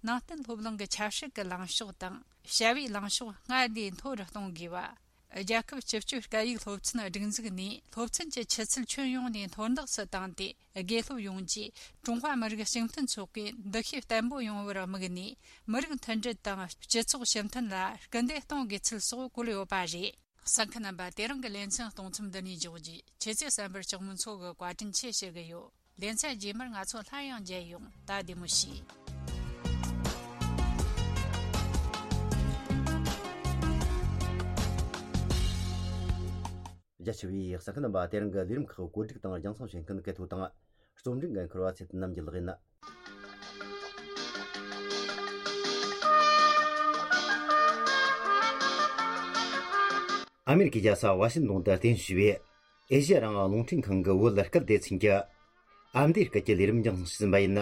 ནང་བསྟན་སློབ་གླིང་གི་ཆབ་སྲིད་ཀྱི་ལངས་ཕྱོགས་དང་བྱ་བའི་ལངས་ཕྱོགས་སྔར་ལས་མཐོ་རུ་གཏོང་དགོས་པ། རྒྱལ་ཁབ་སྤྱི་སྤྱོད་སྐད་ཡིག་སློབ་ཚན་སྒྲིག་འཛུགས་ནས་སློབ་ཚན་གྱི་ཆུ་ཚད་ཁྱོན་ཡོངས་ནས་མཐོར་འདེགས་སུ་བཏང་སྟེ། དགེ་སློབ་ཡོངས་ཀྱིས་ཀྲུང་ཧྭ་མི་རིགས་གཅིག་མཐུན་ཚོགས་པའི་འདུ་ཤེས་བརྟན་པོ་ཡོང་བར་དམིགས་ནས། མི་རིགས་མཐུན་སྒྲིལ་དང་སྤྱི་ཚོགས་ཞི་མཐུན་ལ་སྐུལ་འདེད་གཏོང་དགོས་ཚུལ་སོགས་བཀོད་ཡོད་པ་རེད། གསན་མཁན་རྣམ་པ། དེ་རིང་གི་ལེ་ཚན་གཏོང་མཚམས་འདི་ནས་འཇོག་རྒྱུ། ཁྱེད་ཚོས་གསན་པར་སྐྱག་མོ་མཚོ་གི་བཀའ་དྲིན་ཆེ་ཞུ་གི་ཡོད། ལེ་ཚན་རྗེས་མར་ང་ཚོ་སླར་ཡང་མཇལ་ཡོང་། ད་བདེ་མོ་བྱོས། རྒྱ་ཆེ་བའི་གསན་མཁན་རྣམ་པ། དེ་རིང་གི་ལས་རིམ་ཁག་བཀོད་སྒྲིག་དང་རྒྱང་སྲིང་བྱེད་མཁན་སྐལ་ཐོ་དང་། རྩོམ་སྒྲིག་འགན་འཁུར་བ་ཚེ་བརྟན་རྣམ་རྒྱལ་ལགས་ཡིན། ཨ་མེ་རི་ཁའི་རྒྱལ་ས་ཝ་ཤིང་ཏོན་དུ་རྟེན་གཞི་བྱས་པའི་ཨེ་ཤེ་ཡ་རང་དབང་རླུང་འཕྲིན་ཁང་གི་བོད་སྐད་སྡེ་ཚན་གྱི་ཨ་མདོའི་སྐད་ཀྱི་ལས་རིམ་རྒྱང་སྲིང་ཞུས་ཟིན་པ་ཡིན།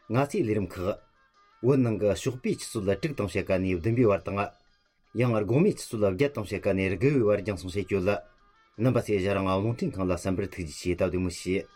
ང་ཚོའི་ལས་རིམ་ཁག་བོད་ནང་གི་ཞོགས་པའི་ཆུ་ཚོད་དྲུག་དང་ཕྱེད་ཀ་ནས་བདུན་པའི་བར་དང་། ཡང་དགོང་མོའི་ཆུ་ཚོད་བརྒྱད་དང་ཕྱེད་ཀ་ནས་དགུ་པའི་བར་རྒྱང་སྲིང་བྱེད་རྒྱུ་ལ། རྣམ་པ་ཚོས་ཨེ་ཤེ་ཡ་རང་དབང་རླུང་འཕྲིན་ཁང་ལ་གསན་པར་ཐུགས་རྗེ་ཆེ། ད་བདེ་མོ་བྱོས།